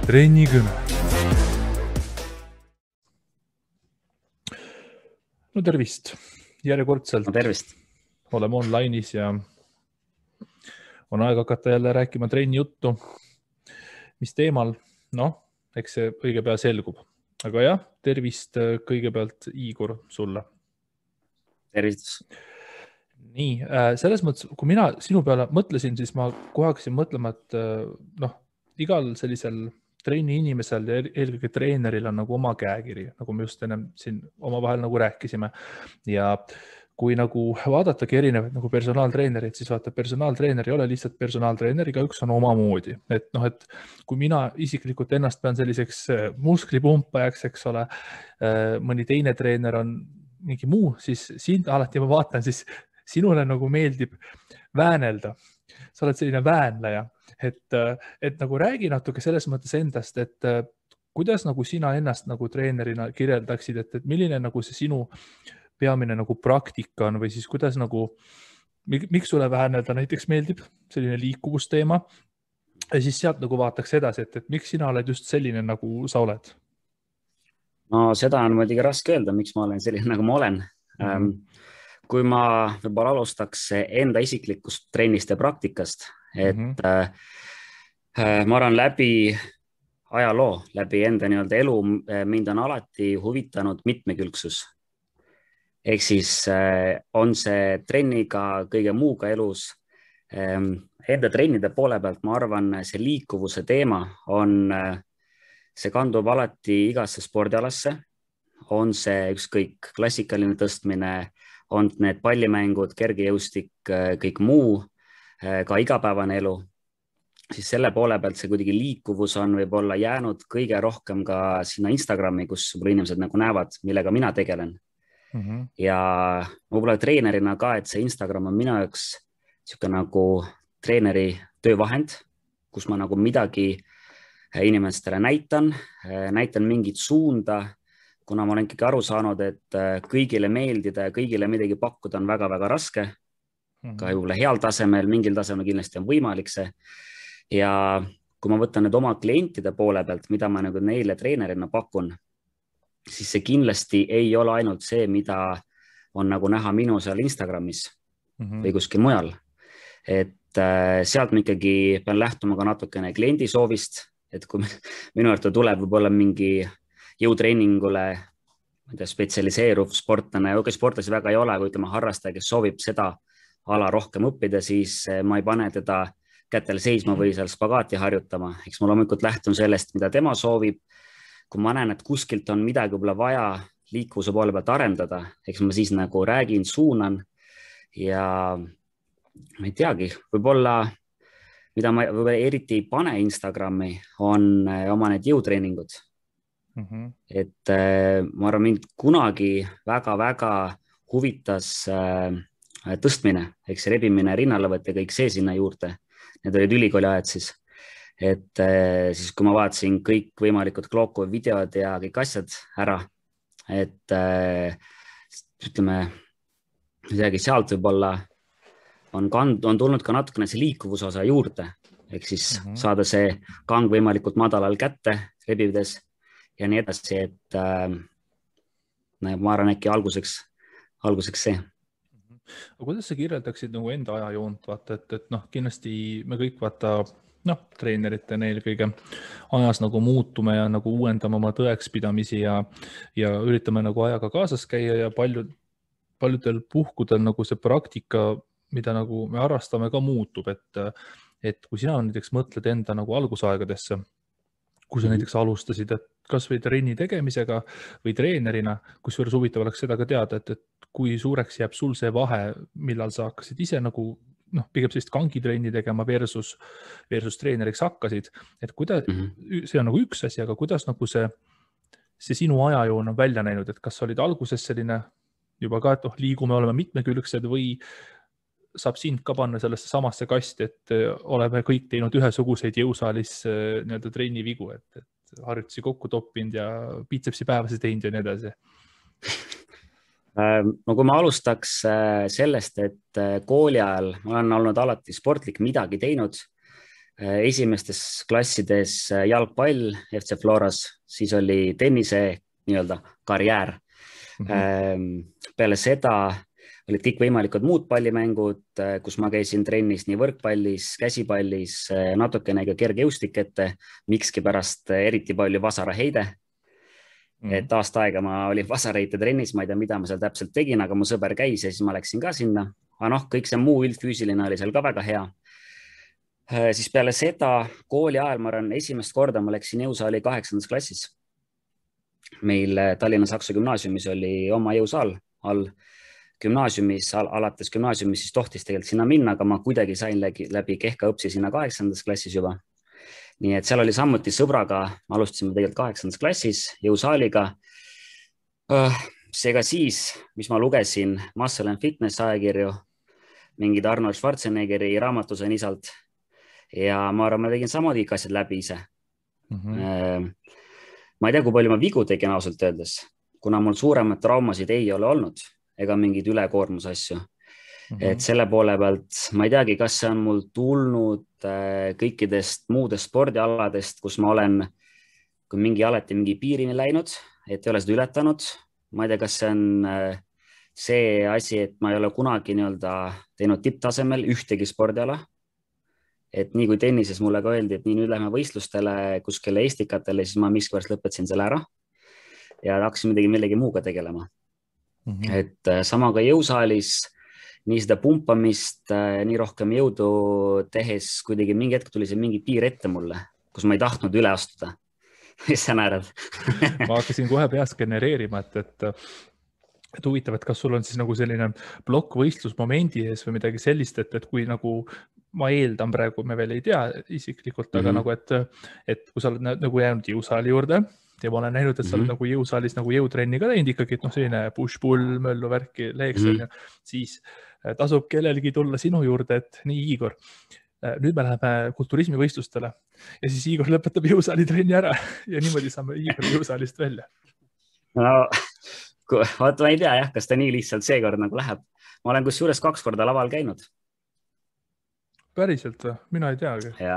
Trennikõne. No tervist. Järjekordselt No tervist. Oleme online'is ja on aeg hakata jälle rääkima trenni juttu. Mis teemal? Noh, eks see õige pea selgub. Aga jah, tervist kõigepealt Igor sulle. Tervitus. Nii, selles mõttes, kui mina sinu peale mõtlesin, siis ma kohe hakkasin mõtlema, et igal sellisel trenni inimesel ja eelkõige treeneril on nagu oma käekiri, nagu me just ennem siin omavahel nagu rääkisime. Ja kui nagu vaadatagi erinevaid nagu personaaltreenerid, siis vaata, personaaltreener ei ole lihtsalt personaaltreener, igaüks on omamoodi. Et kui mina isiklikult ennast pean selliseks musklipumpajaks, eks ole, mõni teine treener on mingi muu, siis sind alati ma vaatan, siis sinule nagu meeldib väänelda. Sa oled selline väänleja. Et nagu räägi natuke selles mõttes endast, et kuidas nagu sina ennast nagu treenerina kirjeldaksid, et milline nagu see sinu peamine nagu praktika on või siis kuidas nagu, miks sulle väänelda näiteks meeldib selline liikuvusteema ja siis sealt nagu vaataks edasi, et miks sina oled just selline nagu sa oled? No seda on muidugi raske öelda, miks ma olen selline nagu ma olen. Kui ma võib-olla alustaks enda isiklikust trennist ja praktikast, et ma arvan läbi ajaloo, läbi enda nii-öelda elu, mind on alati huvitanud mitmekülgsus. Ehk siis on see trenniga kõige muuga elus. Enda trennide poole pealt ma arvan, see liikuvuse teema on, see kandub alati igasse spordialasse. On see ükskõik klassikaline tõstmine, on need pallimängud, kergejõustik, kõik muu, ka igapäevane elu, siis selle poole pealt see kuidagi liikuvus on võib-olla jäänud kõige rohkem ka sinna Instagrami, kus inimesed nagu näevad, millega mina tegelen. Ja võib-olla treenerina ka, et see Instagram on minu jaoks siuke nagu treeneri töövahend, kus ma nagu midagi inimestele näitan mingit suunda, kuna ma olen ikkagi aru saanud, et kõigile meeldida ja kõigile midagi pakkuda on väga-väga raske. Ka võib-olla heal tasemel, mingil tasemel kindlasti on võimalik see. Ja kui ma võtan nüüd oma klientide poole pealt, mida ma nagu neile treenerina pakun, siis see kindlasti ei ole ainult see, mida on nagu näha minu seal Instagramis või kuskil mujal. Et sealt ma ikkagi pean lähtuma ka natukene kliendi soovist, et kui minu juurde tuleb võib-olla mingi jõutreeningule spetsialiseeruv sportlane, sportlasi väga ei ole, kui ütleme harrastaja, kes soovib seda ala rohkem õppida, siis ma ei pane teda kätel seisma või seal spagaati harjutama. Eks ma loomulikult lähtun sellest, mida tema soovib. Kui ma näen, et kuskilt on midagi võib-olla vaja liikuvuse poole pealt arendada, eks ma siis nagu räägin, suunan ja ma ei teagi, võib-olla mida ma eriti ei pane Instagrami, on oma need jõutreeningud. Et ma arvan, mind kunagi väga-väga huvitas tõstmine, eks rebimine, rinnalõvet ja kõik see sinna juurde. Need olid ülikooli ajad siis. Et siis kui ma vaatasin kõik võimalikud Gloku videod ja kõik asjad ära, et ütleme, sealt võib-olla on tulnud ka natukene see liikuvuse osa juurde, ehk siis saada see kang võimalikult madalal kätte rebides ja nii edasi, et ma arvan äkki alguseks see. Aga kuidas sa kirjeldaksid nagu enda ajajoont? Vaata, et kindlasti me kõik treeneritena eelkõige ajas nagu muutume ja nagu uuendame oma tõekspidamisi ja üritame nagu ajaga kaasas käia ja paljudel puhkudel nagu see praktika, mida nagu me harrastame, ka muutub. Et kui sina näiteks mõtled enda nagu algusaegadesse, kui sa näiteks alustasid, et kas või trenni tegemisega või treenerina, kusjuures huvitav oleks seda ka teada, et kui suureks jääb sul see vahe, millal sa hakkasid ise nagu pigem sellist kangitrenni tegema versus treeneriks hakkasid, et kuidas, see on nagu üks asi, aga kuidas nagu see sinu ajajoon on välja näinud, et kas olid alguses selline juba ka, et liigume, oleme mitmekülgsed või saab sind ka panna sellesse samasse kasti, et oleme kõik teinud ühesuguseid jõusaalis nii-öelda trenni vigu, et harjutusi kokku toppinud ja biitsepsi päevasi teinud ja nii edasi. No kui ma alustaks sellest, et kooli ajal ma olen olnud alati sportlik midagi teinud, esimestes klassides jalgpall FC Floras, siis oli tennise nii-öelda karjäär. Peale seda olid kõikvõimalikud muud pallimängud, kus ma käisin trennis nii võrkpallis, käsipallis, natukene ka kergejõustik ette, mikski pärast eriti palju vasaraheide. Et aasta aega ma olin vasaraheite trennis, ma ei tea, mida ma seal täpselt tegin, aga mu sõber käis ja siis ma läksin ka sinna. Aga noh, kõik see muu üldfüüsiline oli seal ka väga hea. Siis peale seda kooli ajal, ma arvan, esimest korda ma läksin jõusaali 8. klassis. Meil Tallinna Saksa gümnaasiumis oli oma jõusaal all gümnaasiumis, alates gümnaasiumis siis tohtis tegelikult sinna minna, aga ma kuidagi sain läbi kehka õpsi sinna 8. klassis juba. Nii et seal oli samuti sõbraga, alustasime tegelikult 8. klassis jõusaaliga. Seega siis, mis ma lugesin Muscle and Fitness ajakirju, mingid Arnold Schwarzeneggeri raamatu sain isalt ja ma arvan, ma tegin samad kõik asjad läbi ise. Ma ei tea, kui palju ma vigu tegin ausalt öeldes, kuna mul suuremad traumasid ei ole olnud ega mingid ülekoormus asju. Et selle poole pealt ma ei teagi, kas see on mul tulnud kõikidest muudest spordialadest, kus ma olen alati mingi piirini läinud, et ei ole seda ületanud. Ma ei tea, kas see on see asi, et ma ei ole kunagi teinud tipptasemel ühtegi spordiala. Et nii kui tennises mulle ka öeldi, et nii nüüd lähme võistlustele kuskile Eestikatele, siis ma miskipärast lõpetasin selle ära ja hakkasin millegi muuga tegelema. Et sama ka jõusaalis, nii seda pumpamist, nii rohkem jõudu tehes, kuidagi mingi hetk tuli see mingi piir ette mulle, kus ma ei tahtnud üle astuda. Mis sa naerad? Ma hakkasin kohe peas genereerima, et huvitav, et kas sul on siis nagu selline plokkvõistlusmomendi ees või midagi sellist, et kui nagu ma eeldan praegu, me veel ei tea isiklikult, aga nagu, et kui sa oled nagu jäänud jõusaali juurde ja ma olen näinud, et sa oled nagu jõusaalis nagu jõutrenni ka teinud ikkagi, et selline push-pull, möllu värki, leeks, siis tasub kellelgi tulla sinu juurde, et nii Igor, nüüd me läheme kulturismivõistlustele ja siis Igor lõpetab jõusaali trenni ära ja niimoodi saame Igor jõusaalist välja. No, vaata, ma ei tea jah, kas ta nii lihtsalt seekord nagu läheb. Ma olen kusjuures 2 korda laval käinud. Päriselt või? Mina ei teagi. Ja,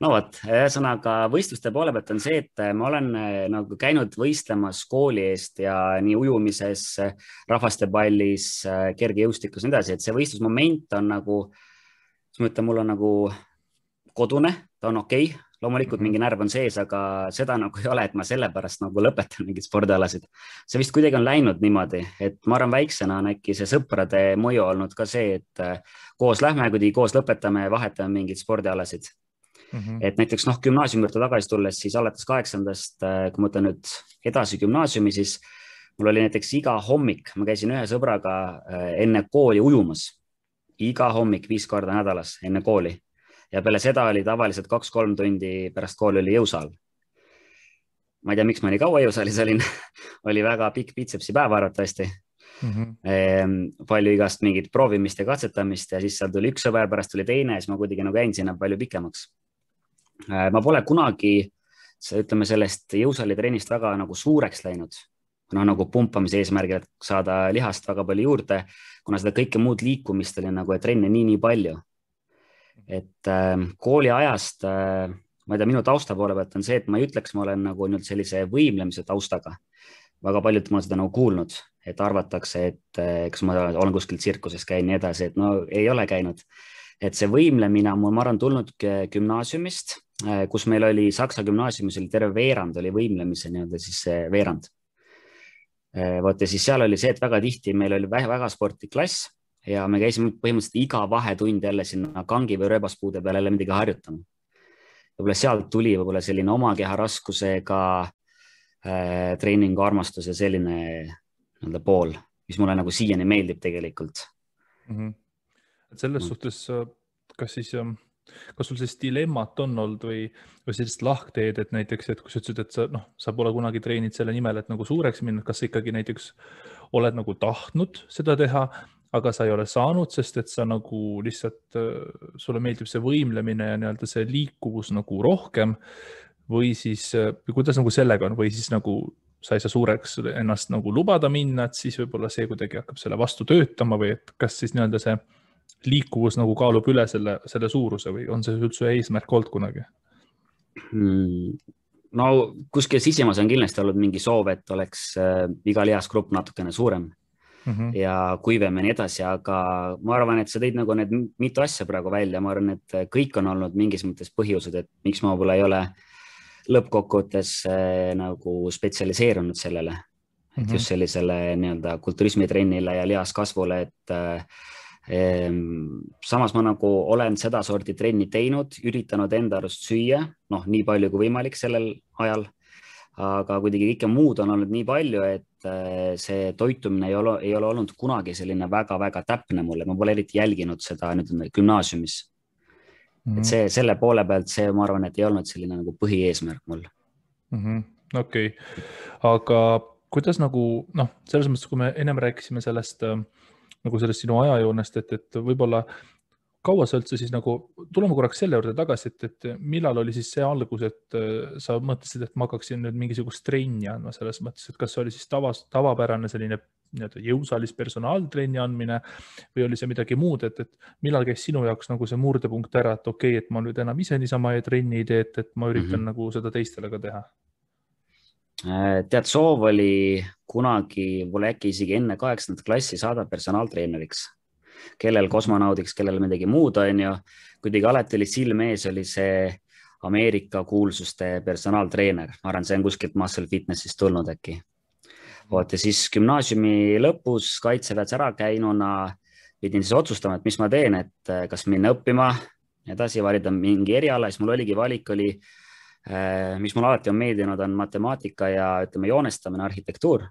no võt, ühesõnaga võistluste poole pealt on see, et ma olen nagu käinud võistlemas kooli eest ja nii ujumises, rahvastepallis, kergejõustikus ja nii edasi, et see võistlusmoment on nagu, ma ütlen, mul on nagu kodune, ta on okei. Loomulikult mingi närv on sees, aga seda nagu ei ole, et ma sellepärast nagu lõpetan mingid spordialasid. See vist kuidagi on läinud niimoodi, et ma arvan väiksena on äkki see sõprade mõju olnud ka see, et koos lähme, kui koos lõpetame ja vahetame mingid spordialasid. Et näiteks gümnaasiumi juurde tagasi tulles, siis alates 8. Kui ma mõtlen nüüd edasi gümnaasiumi, siis mul oli näiteks iga hommik, ma käisin ühe sõbraga enne kooli ujumas. Iga hommik 5 korda nädalas enne kooli. Ja peale seda oli tavaliselt 2-3 tundi pärast kooli oli jõusaal. Ma ei tea, miks ma nii kaua jõusaalis olin. Oli väga pikk bitsepsi päev arvatavasti. Palju igast mingit proovimist ja katsetamist ja siis seal tuli üks sõber, pärast tuli teine ja siis ma kuidagi nagu jäin sinna palju pikemaks. Ma pole kunagi, ütleme, sellest jõusaali trennist väga nagu suureks läinud. Nagu pumpamise eesmärgil, et saada lihast väga palju juurde, kuna seda kõike muud liikumist oli nagu, et trenne nii palju. Et kooli ajast, ma ei tea, minu tausta poole pealt on see, et ma ei ütleks, ma olen nagu nüüd sellise võimlemise taustaga. Väga paljud ma olen seda nagu kuulnud, et arvatakse, et kas ma olen kuskil tsirkuses käin nii edasi, et no ei ole käinud. Et see võimlemine on mul, ma arvan, tulnud gümnaasiumist, kus meil oli Saksa gümnaasiumis oli terve veerand, oli võimlemise nii-öelda siis see veerand. Vaata, siis seal oli see, et väga tihti meil oli väga sportlik klass ja me käisime põhimõtteliselt iga vahetund jälle sinna kangi või rööbaspuude peale jälle midagi harjutama. Võib-olla sealt tuli võib-olla selline oma keha raskusega treeningu armastus ja selline pool, mis mulle nagu siiani meeldib tegelikult. Selles suhtes, kas sul see dilemmat on olnud või sellist lahkteed, et näiteks, et kui sa ütlesid, et sa pole kunagi treenid selle nimel, et nagu suureks minna, kas sa ikkagi näiteks oled nagu tahtnud seda teha, aga sa ei ole saanud, sest et sa nagu lihtsalt, sulle meeldib see võimlemine ja nii-öelda see liikuvus nagu rohkem või siis, kuidas nagu sellega on, või siis nagu sa ei saa suureks ennast nagu lubada minna, et siis võib-olla see kuidagi hakkab selle vastu töötama või et kas siis nii-öelda see liikuvus nagu kaalub üle selle suuruse või on see üldse eesmärk olnud kunagi? No kuskil sisimas on kindlasti olnud mingi soov, et oleks iga lihasgrupp natukene suurem ja kuivem ja nii edasi, aga ma arvan, et sa tõid nagu need mitu asja praegu välja, ma arvan, et kõik on olnud mingis mõttes põhjused, et miks ma võib-olla ei ole lõppkokkuvõttes nagu spetsialiseerunud sellele, et just sellisele nii-öelda kulturismitrennile ja lihaskasvule, et samas ma nagu olen seda sorti trenni teinud, üritanud enda arust süüa, noh, nii palju kui võimalik sellel ajal, aga kuidagi kõike muud on olnud nii palju, et see toitumine ei ole olnud kunagi selline väga-väga täpne mulle, ma pole eriti jälginud seda nüüd gümnaasiumis. Et selle poole pealt see, ma arvan, et ei olnud selline nagu põhieesmärk mul. Okei. Aga kuidas nagu, noh, selles mõttes, kui me ennem rääkisime sellest sinu ajajoonest, et võib-olla kaua sa üldse siis nagu, tuleme korraks selle juurde tagasi, et millal oli siis see algus, et sa mõtlesid, et ma hakkaksin nüüd mingisugust trenni andma selles mõttes, et kas see oli siis tavapärane selline jõusalis personaaltrenni andmine või oli see midagi muud, et millal käis sinu jaoks nagu see murdepunkt ära, et okei, et ma nüüd enam ise niisama trenni ei tee, et ma üritan nagu seda teistele ka teha? Tead, soov oli kunagi, võib-olla äkki isegi enne 8. klassi saada personaaltreeneriks, kellel kosmonaudiks, kellel midagi muud on ju. Kuidagi alati oli silme ees, oli see Ameerika kuulsuste personaaltreener. Ma arvan, see on kuskilt Muscle Fitnessist tulnud äkki. Ja siis gümnaasiumi lõpus kaitseväes ära käinuna pidin siis otsustama, et mis ma teen, et kas minna õppima edasi, valida mingi eriala. Siis mul oligi valik, mis mul alati on meeldinud, on matemaatika ja ütleme joonestamine, arhitektuur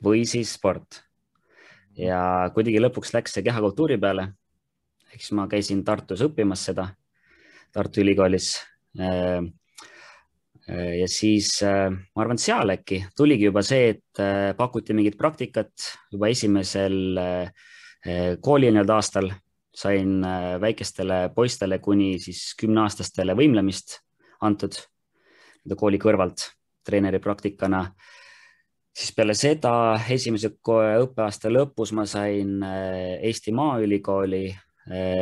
või siis sport. Ja kuidagi lõpuks läks see kehakultuuri peale. Ehk siis ma käisin Tartus õppimas seda, Tartu Ülikoolis. Ja siis ma arvan, seal äkki tuligi juba see, et pakuti mingit praktikat juba esimesel kooli aastal. Sain väikestele poistele kuni siis 10-aastastele võimlemist antud kooli kõrvalt treeneri praktikana. Siis peale seda esimese õppeaasta lõpus ma sain Eesti Maaülikooli,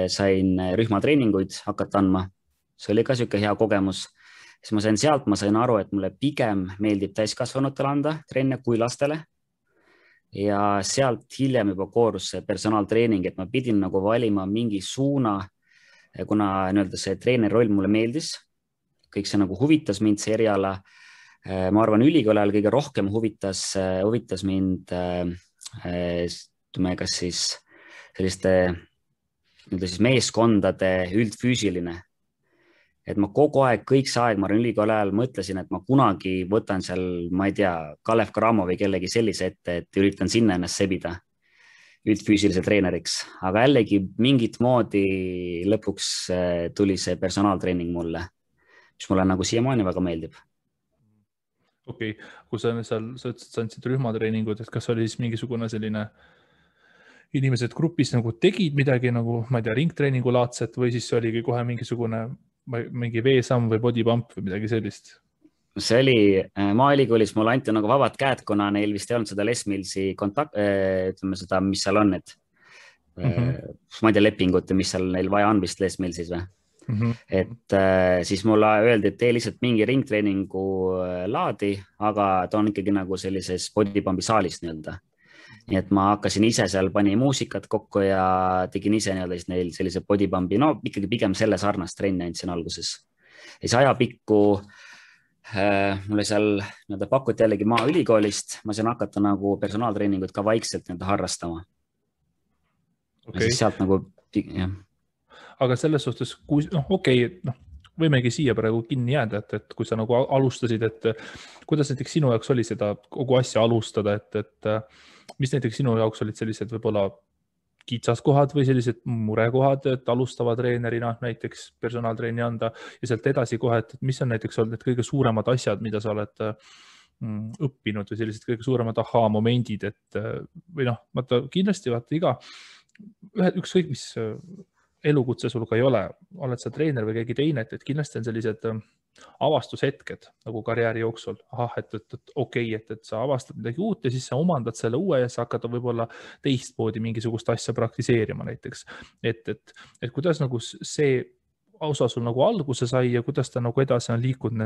sain rühmatreeninguid hakata andma. See oli ka selline hea kogemus. Siis ma sain aru, et mulle pigem meeldib täiskasvanutele anda trenne kui lastele. Ja sealt hiljem juba koorus see personaaltreening, et ma pidin nagu valima mingi suuna, kuna see treeneri roll mulle meeldis. Kõik see nagu huvitas mind, see eriala. Ma arvan, ülikooli ajal kõige rohkem huvitas mind kas siis selliste meeskondade üldfüüsiline. Et ma kogu aeg, kõik see aeg, ma arvan, ülikooli ajal mõtlesin, et ma kunagi võtan seal, ma ei tea, Kalev Cramo või kellegi sellise ette, et üritan sinna ennast sebida üldfüüsilise treeneriks. Aga jällegi mingit moodi lõpuks tuli see personaaltreening mulle, mis mulle nagu siiamaani väga meeldib. Okei, kui sa ütlesid, sa andsid rühmatreeningud, et kas oli siis mingisugune selline inimesed grupis nagu tegid midagi nagu, ma ei tea, ringtreeningu laadset või siis oligi kohe mingi veesamm või body pump või midagi sellist? See oli Maaülikoolis, mulle anti nagu vabad käed, kuna neil vist ei olnud seda Les Millsi ütleme seda, mis seal on, et ma ei tea lepingut, mis seal neil vaja on vist Les Millsis või? Et siis mulle öeldi, et tee lihtsalt mingi ringtreeningu laadi, aga ta on ikkagi nagu sellises bodypumpi saalis nii-öelda. Nii et ma hakkasin ise seal, panin muusikat kokku ja tegin ise nii-öelda neil sellise bodypumpi, no ikkagi pigem selle sarnast trenni andsin alguses. Ja see ajapikku mulle seal pakuti jällegi Maaülikoolist, ma sain hakata nagu personaaltreeningut ka vaikselt harrastama. Ja siis sealt nagu, jah. Aga selles suhtes, võimegi siia praegu kinni jääda, et kui sa nagu alustasid, et kuidas näiteks sinu jaoks oli seda kogu asja alustada, et mis näiteks sinu jaoks olid sellised võib-olla kitsaskohad või sellised murekohad, et alustava treenerina näiteks personaaltreeni anda ja sealt edasi kohe, et mis on näiteks olnud need kõige suuremad asjad, mida sa oled õppinud või sellised kõige suuremad ahhaa-momendid, et või noh, kindlasti ükskõik mis elukutse sul ka ei ole, oled sa treener või keegi teine, et kindlasti on sellised avastushetked nagu karjääri jooksul. Ahah, et okei, et sa avastad midagi uut ja siis sa omandad selle uue ja sa hakkad võib-olla teistmoodi mingisugust asja praktiseerima näiteks. Et kuidas nagu see osa sul nagu alguse sai ja kuidas ta nagu edasi on liikunud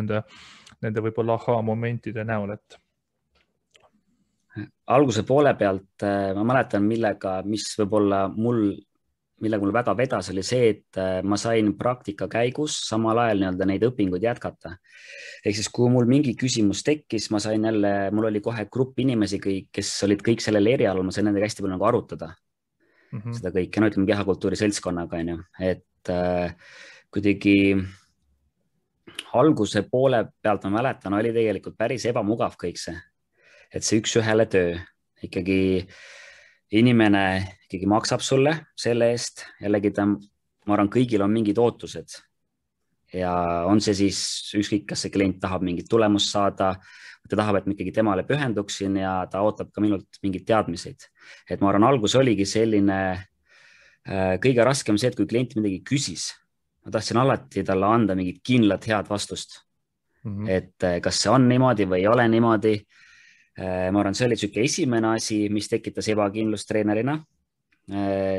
nende võib-olla momentide näol, et alguse poole pealt ma mäletan, mis võib-olla millega mul väga vedas, oli see, et ma sain praktika käigus samal ajal nii-öelda neid õpinguid jätkata. Ehk siis, kui mul mingi küsimus tekkis, mul oli kohe grupp inimesi, kes olid kõik sellel erialal, ma sain nendega hästi palju nagu arutada seda kõike, no ütleme kehakultuuri seltskonnaga, on ju, et kuidagi alguse poole pealt ma mäletan, oli tegelikult päris ebamugav kõik see, et see üks-ühele töö ikkagi inimene ikkagi maksab sulle selle eest, jällegi ma arvan, kõigil on mingid ootused ja on see siis ükskõik, kas see klient tahab mingit tulemust saada, ta tahab, et ma ikkagi temale pühenduksin ja ta ootab ka minult mingeid teadmiseid. Et ma arvan, algus oligi selline kõige raskem see, et kui klient midagi küsis, ma tahtsin alati talle anda mingit kindlat head vastust. Et kas see on niimoodi või ei ole niimoodi. Ma arvan, see oli siuke esimene asi, mis tekitas ebakindlust treenerina.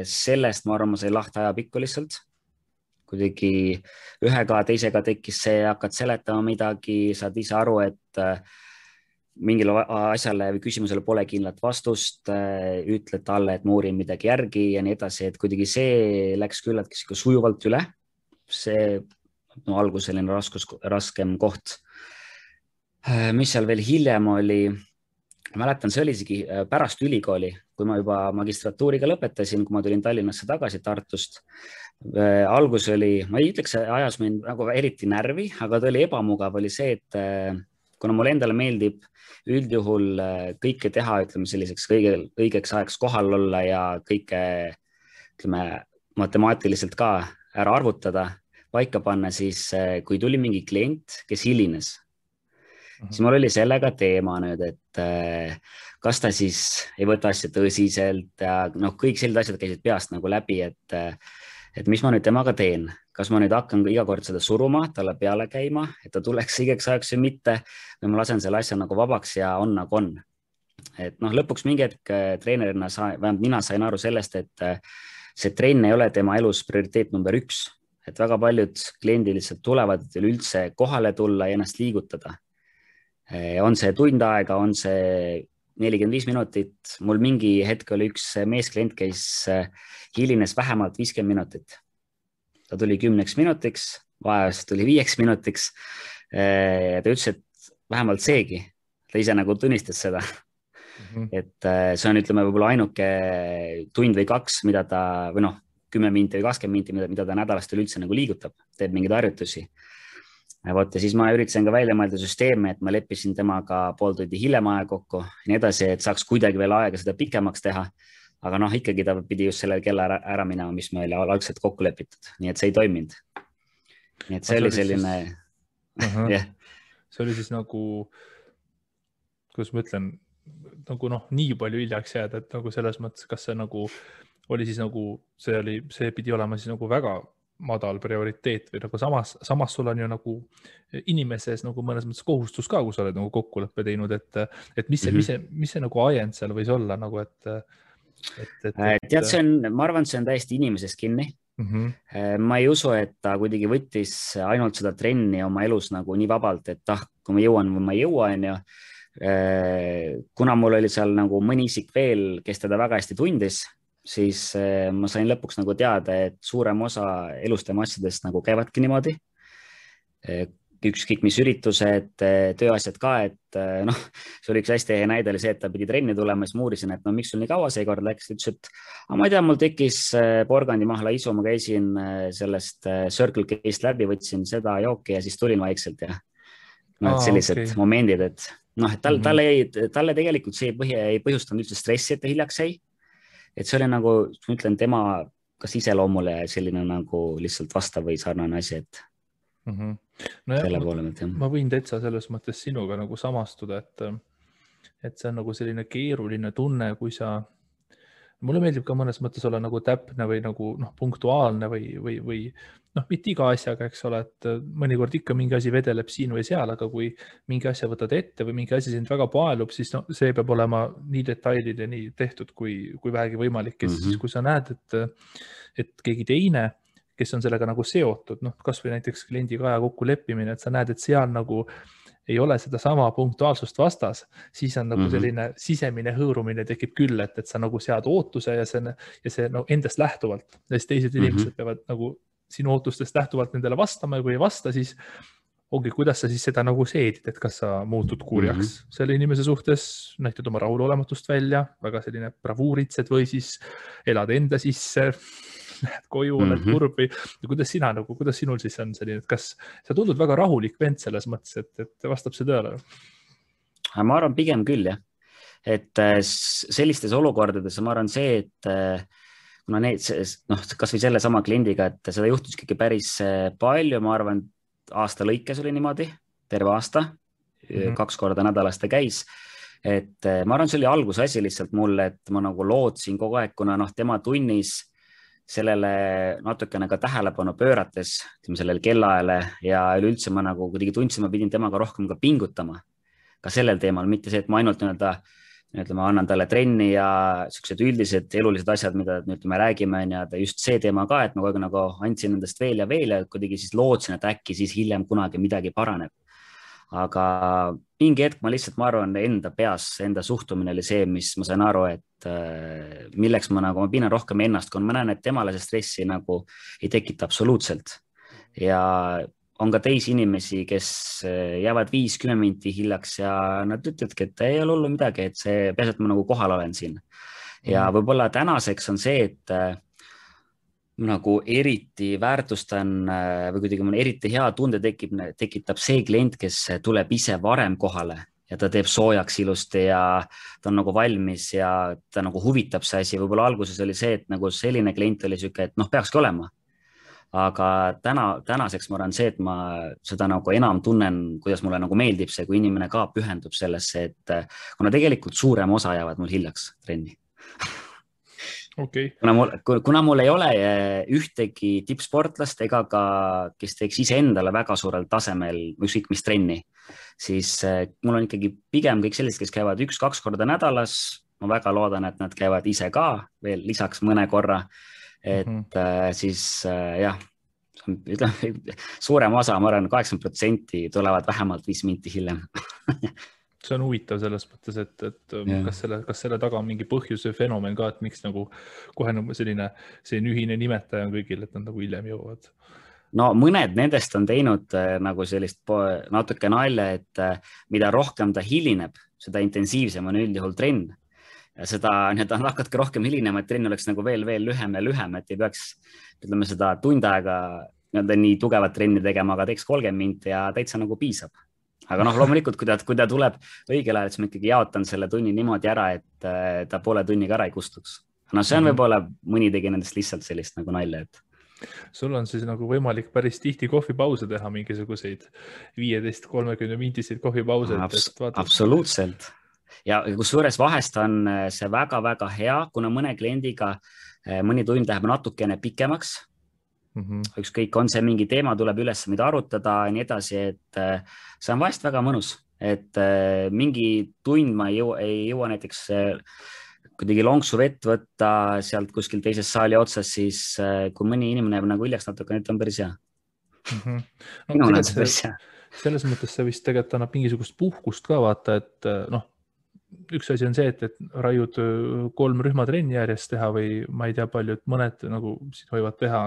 Sellest ma arvan, ma sai lahti ajapikku lihtsalt. Kuidagi ühega, teisega tekkis see, hakkad seletama midagi, saad ise aru, et mingile asjale või küsimusele pole kindlat vastust, ütled talle, et ma uurin midagi järgi ja nii edasi, et kuidagi see läks küllaltki sujuvalt üle. See algus selline raskem koht. Mis seal veel hiljem oli, mäletan, see oli isegi pärast ülikooli, kui ma juba magistratuuriga lõpetasin, kui ma tulin Tallinnasse tagasi Tartust. Algus oli, ma ei ütleks, ajas mind nagu eriti närvi, aga ta oli ebamugav, oli see, et kuna mulle endale meeldib üldjuhul kõike teha, ütleme selliseks õigeks ajaks kohal olla ja kõike, ütleme, matemaatiliselt ka ära arvutada, paika panna, siis kui tuli mingi klient, kes hilines, siis mul oli sellega teema nüüd, et kas ta siis ei võta asja tõsiselt ja kõik sellised asjad käisid peast nagu läbi, et mis ma nüüd temaga teen, kas ma nüüd hakkan iga kord seda suruma, talle peale käima, et ta tuleks õigeks ajaks või mitte, või ma lasen selle asja nagu vabaks ja on nagu on. Et lõpuks mingi hetk treenerina vähemalt mina sain aru sellest, et see trenn ei ole tema elus prioriteet number 1, et väga paljud kliendid lihtsalt tulevad, et üldse kohale tulla ja ennast liigutada. On see tund aega, on see 45 minutit. Mul mingi hetk oli üks meesklient, kes hilines vähemalt 50 minutit. Ta tuli 10 minutiks, vahest tuli 5 minutiks. Ta ütles, et vähemalt seegi. Ta ise nagu tunnistas seda. Et see on, ütleme, võib-olla ainuke tund või 2, mida ta, või 10 minti või 20 minti, mida ta nädalast üldse nagu liigutab, teeb mingeid harjutusi. Ja siis ma üritasin ka välja mõelda süsteemi, et ma leppisin temaga pool tundi hiljem aja kokku ja nii edasi, et saaks kuidagi veel aega seda pikemaks teha. Aga ikkagi ta pidi just sellel kella ära minema, mis me oli algselt kokku lepitud. Nii et see ei toiminud. Nii et see oli selline... See oli siis nagu, kuidas ma ütlen, nagu nii palju hiljaks jääda, et nagu selles mõttes, kas see nagu oli siis nagu, see pidi olema siis nagu väga madal prioriteet või nagu samas sul on ju nagu inimeses nagu mõnes mõttes kohustus ka, kui sa oled nagu kokkuleppe teinud, et mis see nagu ajend seal võis olla nagu, tead, ma arvan, see on täiesti inimesest kinni. Ma ei usu, et ta kuidagi võttis ainult seda trenni oma elus nagu nii vabalt, et kui ma jõuan või ma ei jõua, on ju. Kuna mul oli seal nagu mõni isik veel, kes teda väga hästi tundis, siis ma sain lõpuks nagu teada, et suurem osa elustema asjadest nagu käivadki niimoodi. Ükskõik mis üritused, tööasjad ka, et see oli üks hästi hea näide oli see, et ta pidi trenni tulema, siis ma uurisin, et miks sul nii kaua seekord läks, ütles, et ma ei tea, mul tekkis porgandimahla isu, ma käisin sellest Circle K-st läbi, võtsin seda jooki ja siis tulin vaikselt ja sellised momendid, et talle tegelikult see ei põhjustanud üldse stressi, et ta hiljaks jäi. Et see oli nagu, ma ütlen, tema kas iseloomule selline nagu lihtsalt vastav või sarnane asi, et selle poole mõt, jah. Ma võin täitsa selles mõttes sinuga nagu samastuda, et see on nagu selline keeruline tunne, kui sa mulle meeldib ka mõnes mõttes olla nagu täpne või nagu punktuaalne või mitte iga asjaga, eks ole, et mõnikord ikka mingi asi vedeleb siin või seal, aga kui mingi asja võtad ette või mingi asi sind väga paelub, siis see peab olema nii detailideni tehtud, kui vähegi võimalik. Ja siis, kui sa näed, et keegi teine, kes on sellega nagu seotud, kas või näiteks kliendiga aja kokku leppimine, et sa näed, et seal nagu ei ole seda sama punktuaalsust vastas, siis on nagu selline sisemine hõõrumine tekib küll, et sa nagu sead ootuse ja see endast lähtuvalt. Ja siis teised inimesed peavad nagu sinu ootustest lähtuvalt nendele vastama ja kui ei vasta, siis ongi, kuidas sa siis seda nagu seedid, et kas sa muutud kurjaks selle inimese suhtes, näitad oma rahulolematust välja, väga selline bravuuritsed või siis elad enda sisse, lähed koju, oled kurb või kuidas sinul siis on selline, et kas sa tundud väga rahulik vend selles mõttes, et vastab see tõele? Ma arvan pigem küll, jah. Et sellistes olukordades ma arvan see, et kuna kas või selle sama kliendiga, et seda juhtus ikkagi päris palju, ma arvan, aasta lõikes oli niimoodi, terve aasta, 2 korda nädalas ta käis. Et ma arvan, see oli alguse asi lihtsalt mulle, et ma nagu lootsin kogu aeg, kuna tema tunnis sellele natukene ka tähelepanu pöörates, sellele kellaajale ja üleüldse ma nagu kuidagi tundsin, ma pidin temaga rohkem ka pingutama ka sellel teemal, mitte see, et ma ainult ütleme, annan talle trenni ja sellised üldised elulised asjad, mida me räägime, ja just see teema ka, et ma kogu aeg nagu andsin endast veel ja kuidagi siis lootsin, et äkki siis hiljem kunagi midagi paraneb. Aga mingi hetk ma arvan, enda peas, enda suhtumine oli see, mis ma sain aru, et milleks ma piinan rohkem ennast, kui ma näen, et temale see stressi nagu ei tekita absoluutselt. Ja on ka teisi inimesi, kes jäävad 5-10 minti hiljaks ja nad ütlevadki, et ei ole hullu midagi, et see peas, et ma nagu kohal olen siin. Ja võib-olla tänaseks on see, et nagu eriti väärtustan või kuidagi eriti hea tunde tekitab see klient, kes tuleb ise varem kohale ja ta teeb soojaks ilusti ja ta on nagu valmis ja ta nagu huvitab see asi. Võib-olla alguses oli see, et nagu selline klient oli siuke, et peakski olema. Aga tänaseks ma arvan see, et ma seda nagu enam tunnen, kuidas mulle nagu meeldib see, kui inimene ka pühendub sellesse, et kuna tegelikult suurem osa jäävad mul hiljaks trenni. Okay. Kuna mul ei ole ühtegi tippsportlast ega ka, kes teeks iseendale väga suurel tasemel ükskõik mis trenni, siis mul on ikkagi pigem kõik sellised, kes käivad 1-2 korda nädalas. Ma väga loodan, et nad käivad ise ka veel lisaks mõne korra, et siis jah, suurem osa, ma arvan, 80% tulevad vähemalt 5 minti hiljem. See on huvitav selles mõttes, et kas selle taga on mingi põhjus või fenomen ka, et miks nagu kohe selline ühine nimetaja on kõigil, et nad nagu hiljem jõuavad? No mõned nendest on teinud nagu sellist natuke nalja, et mida rohkem ta hilineb, seda intensiivsem on üldjuhul trenn. Ja seda hakkadki rohkem hilinema, et trenn oleks nagu veel lühem ja lühem, et ei peaks seda tund aega nii tugevat trenni tegema, aga teeks 30 minti ja täitsa nagu piisab. Aga loomulikult, kui ta tuleb õigel ajal, siis ma ikkagi jaotan selle tunni niimoodi ära, et ta poole tunniga ära ei kustuks. See on võib-olla mõni tegi nendest lihtsalt sellist nagu nalja, et sul on siis nagu võimalik päris tihti kohvipause teha, mingisuguseid 15-30 mintiseid kohvipause. Absoluutselt. Ja kusjuures vahest on see väga-väga hea, kuna mõne kliendiga mõni tund läheb natukene pikemaks. Ükskõik, on see mingi teema, tuleb üles, mida arutada ja nii edasi, et see on vahest väga mõnus, et mingi tund ma ei jõua näiteks kuidagi lonksu vett võtta sealt kuskil teises saali otsas, siis kui mõni inimene jääb nagu hiljaks natuke, nüüd on päris hea. Minul on see päris hea. Selles mõttes see vist tegelikult annab mingisugust puhkust ka vaata, et üks asi on see, et raiud 3 rühmatrenni järjest teha või ma ei tea palju, et mõned nagu siin võivad teha,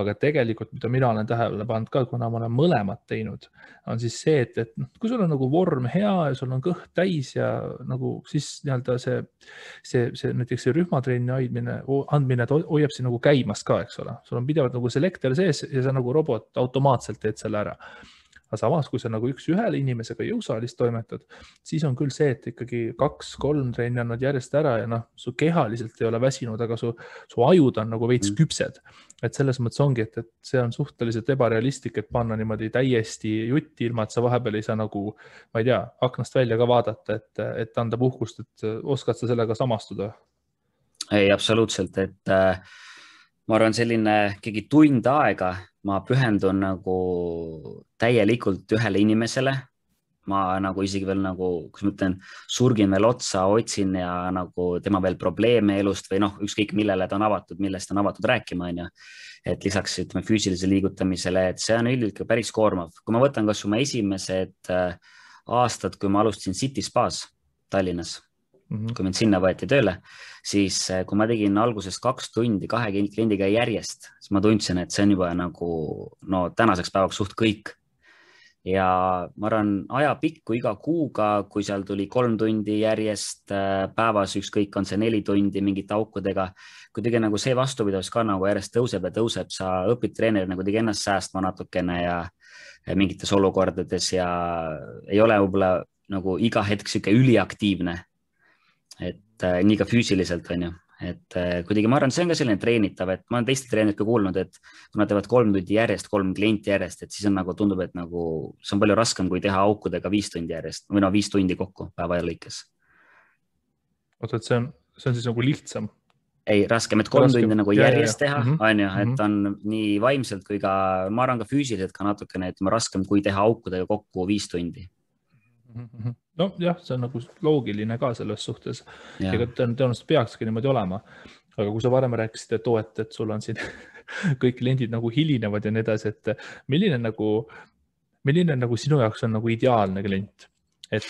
aga tegelikult, mida mina olen tähele pannud ka, kuna ma olen mõlemad teinud, on siis see, et kui sul on nagu vorm hea ja sul on kõht täis ja nagu siis nii-öelda see näiteks see rühmatrenni andmine hoiab siin nagu käimas ka, eks ole. Sul on pidevalt nagu selektor sees ja sa nagu robot automaatselt teed selle ära. Aga samas, kui sa nagu üks-ühele inimesega jõusaalis toimetad, siis on küll see, et ikkagi 2-3 trenni annad järjest ära ja su kehaliselt ei ole väsinud, aga su ajud on nagu veits küpsed. Et selles mõttes ongi, et see on suhteliselt ebarealistlik, et panna niimoodi täiesti jutti ilma, et sa vahepeal ei saa nagu, ma ei tea, aknast välja ka vaadata, et anda puhkust, et oskad sa sellega samastuda? ei, absoluutselt, et ma arvan, selline keegi tund aega ma pühendun nagu täielikult ühele inimesele. Ma nagu isegi veel nagu, kus ma ütlen, surgin veel otsa, otsin ja nagu tema veel probleeme elust või noh, ükskõik millele ta on avatud, millest on avatud rääkima, on ju. Et lisaks ütleme füüsilise liigutamisele, et see on üldiselt päris koormav. Kui ma võtan kas oma esimesed aastad, kui ma alustasin City Spas Tallinnas, kui mind sinna võeti tööle, siis kui ma tegin alguses 2 tundi 2 kliendiga järjest, siis ma tundsin, et see on juba nagu no tänaseks päevaks suht kõik. Ja ma arvan, ajapikku iga kuuga, kui seal tuli 3 tundi järjest päevas, ükskõik on see 4 tundi mingite aukudega, kuidagi nagu see vastupidavus ka nagu järjest tõuseb ja tõuseb, sa õpid treeneri nagu kuidagi ennast säästma natukene ja mingites olukordades ja ei ole võib-olla nagu iga hetk sihuke üliaktiivne, et nii ka füüsiliselt on ju. Et kuidagi ma arvan, see on ka selline treenitav, et ma olen teiste treenerid ka kuulnud, et kui nad teevad 3 tundi järjest, 3 klienti järjest, et siis on nagu tundub, et nagu see on palju raskem, kui teha aukudega 5 tundi järjest või no 5 tundi kokku päeva lõikes. Oota, et see on siis nagu lihtsam? Ei, raskem, et 3 tundi nagu järjest teha, on ju, et on nii vaimselt kui ka, ma arvan ka füüsiliselt ka natukene, et raskem, kui teha aukudega kokku 5 tundi. No jah, see on nagu loogiline ka selles suhtes. Ega tõenäoliselt peakski niimoodi olema. Aga kui sa varem rääkisid, et sul on siin kõik kliendid nagu hilinevad ja nii edasi, et milline nagu sinu jaoks on nagu ideaalne klient? Et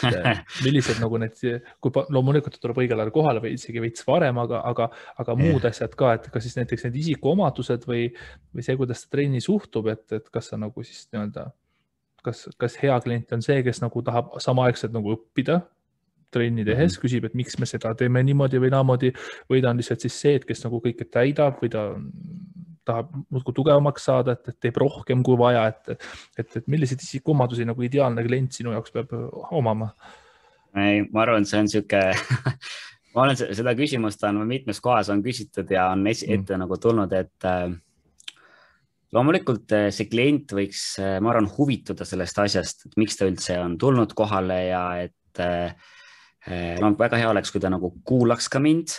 millised nagu need, kui loomulikult tuleb õigel ajal kohale või isegi veits varem, aga muud asjad ka, et kas siis näiteks need isikuomadused või see, kuidas ta trenni suhtub, et kas sa nagu siis nii-öelda kas hea klient on see, kes nagu tahab samaaegselt nagu õppida trenni tehes, küsib, et miks me seda teeme niimoodi või naamoodi, või ta on lihtsalt siis see, et kes nagu kõike täidab või ta tahab muudkui tugevamaks saada, et teeb rohkem kui vaja, et milliseid isikuomadusi nagu ideaalne klient sinu jaoks peab omama? Ei, ma arvan, see on siuke ma olen seda küsimust on mitmes kohas on küsitud ja on ette nagu tulnud, et loomulikult see klient võiks, ma arvan, huvituda sellest asjast, et miks ta üldse on tulnud kohale ja et no, väga hea oleks, kui ta nagu kuulaks ka mind.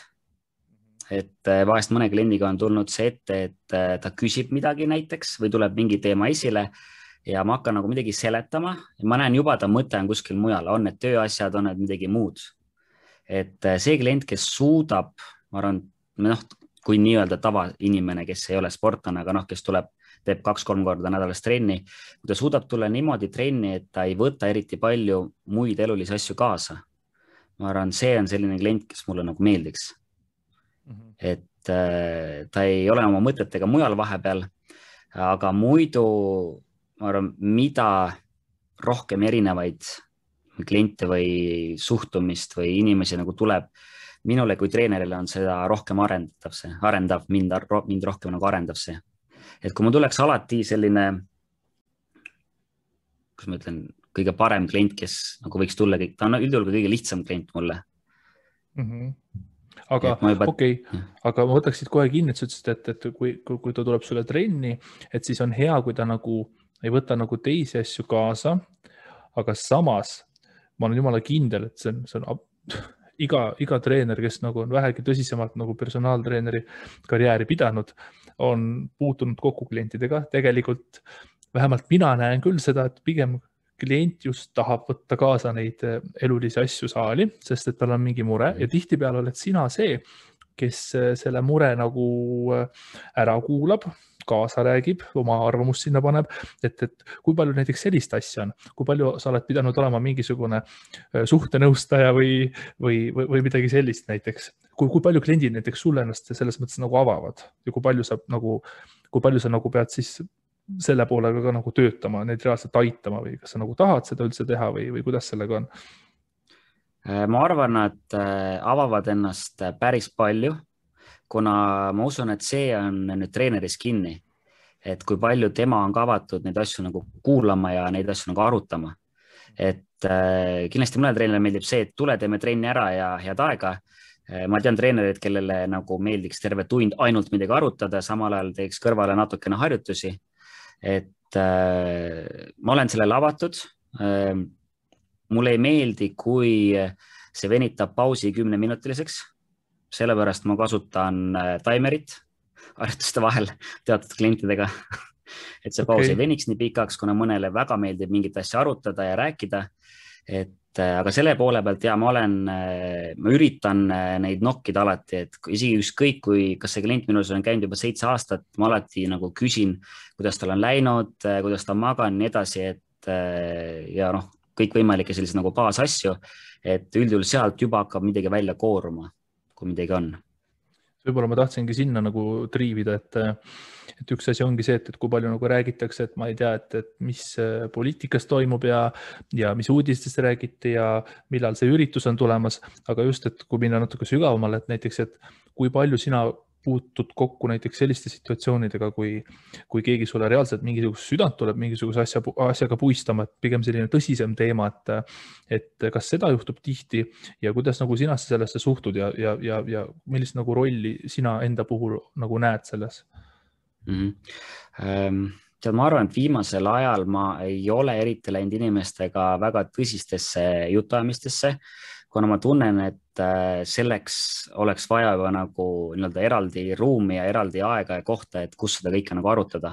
Et vahest mõne kliendiga on tulnud see ette, et ta küsib midagi näiteks või tuleb mingi teema esile ja ma hakkan nagu midagi seletama ja ma näen juba, ta mõte on kuskil mujal, on need tööasjad, on need midagi muud. Et see klient, kes suudab, ma arvan, noh, kui nii-öelda tavainimene, kes ei ole sportlane, aga noh, kes teeb 2-3 korda nädalas trenni, kui ta suudab tulla niimoodi trenni, et ta ei võta eriti palju muid elulisi asju kaasa. Ma arvan, see on selline klient, kes mulle nagu meeldiks. Et ta ei ole oma mõtetega mujal vahepeal, aga muidu, ma arvan, mida rohkem erinevaid kliente või suhtumist või inimesi nagu tuleb, minule kui treenerile on seda rohkem arendav, mind rohkem nagu arendav see. Et kui ma tuleks alati selline, kus ma ütlen, kõige parem klient, kes nagu võiks tulla, ta on üldjuhul kõige lihtsam klient mulle. Aga okei, aga ma võtaksid kohe kinni, et sa ütlesid, et kui ta tuleb sulle trenni, et siis on hea, kui ta nagu ei võta nagu teisi asju kaasa, aga samas ma olen jumala kindel, et see on iga treener, kes nagu on vähegi tõsisemalt nagu personaaltreeneri karjääri pidanud, on puutunud kokku klientidega. Tegelikult vähemalt mina näen küll seda, et pigem klient just tahab võtta kaasa neid elulisi asju saali, sest et tal on mingi mure ja tihtipeale oled sina see, kes selle mure nagu ära kuulab, kaasa räägib, oma arvamust sinna paneb, et kui palju näiteks sellist asja on, kui palju sa oled pidanud olema mingisugune suhtenõustaja või midagi sellist näiteks, kui palju kliendid näiteks sulle ennast selles mõttes nagu avavad ja kui palju sa nagu pead siis selle poolega ka nagu töötama, neid reaalselt aitama või kas sa nagu tahad seda üldse teha või kuidas sellega on? Ma arvan, et avavad ennast päris palju, kuna ma usun, et see on nüüd treeneris kinni, et kui palju tema on ka avatud neid asju nagu kuulama ja neid asju nagu arutama. Et kindlasti mõnele treenerile meeldib see, et tule, teeme trenni ära ja head aega. Ma tean treenerid, kellele nagu meeldiks terve tund ainult midagi arutada, samal ajal teeks kõrvale natukene harjutusi. Et ma olen sellele avatud. Mulle ei meeldi, kui see venitab pausi 10-minutiliseks. sellepärast ma kasutan timerit harjutuste vahel teatud klientidega et see paus ei veniks nii pikaks, kuna mõnele väga meeldib mingit asja arutada ja rääkida. Aga selle poole pealt ja ma üritan neid nokkida alati, et isegi ükskõik, kas see klient minus on käinud juba 7 aastat, ma alati nagu küsin, kuidas tal on läinud, kuidas ta on maganud, nii edasi, ja noh, kõikvõimalikke selliseid nagu baasasju, et üldjuhul sealt juba hakkab midagi välja kooruma, kui midagi on. Võib-olla ma tahtsingi sinna nagu triivida, et üks asi ongi see, et kui palju nagu räägitakse, et ma ei tea, et mis poliitikas toimub ja mis uudistest räägiti ja millal see üritus on tulemas, aga just, et kui minna natuke sügavamale, et näiteks, et kui palju sina puutud kokku näiteks selliste situatsioonidega, kui keegi sulle reaalselt mingisugust südant tuleb mingisuguse asjaga puistama, et pigem selline tõsisem teema, et kas seda juhtub tihti ja kuidas nagu sina sellesse suhtud ja millist nagu rolli sina enda puhul nagu näed selles? Tead, ma arvan, et viimasel ajal ma ei ole eriti läinud inimestega väga tõsistesse jutuajamistesse, kuna ma tunnen, et selleks oleks vaja juba nagu eraldi ruumi ja eraldi aega ja kohta, et kus seda kõike nagu arutada.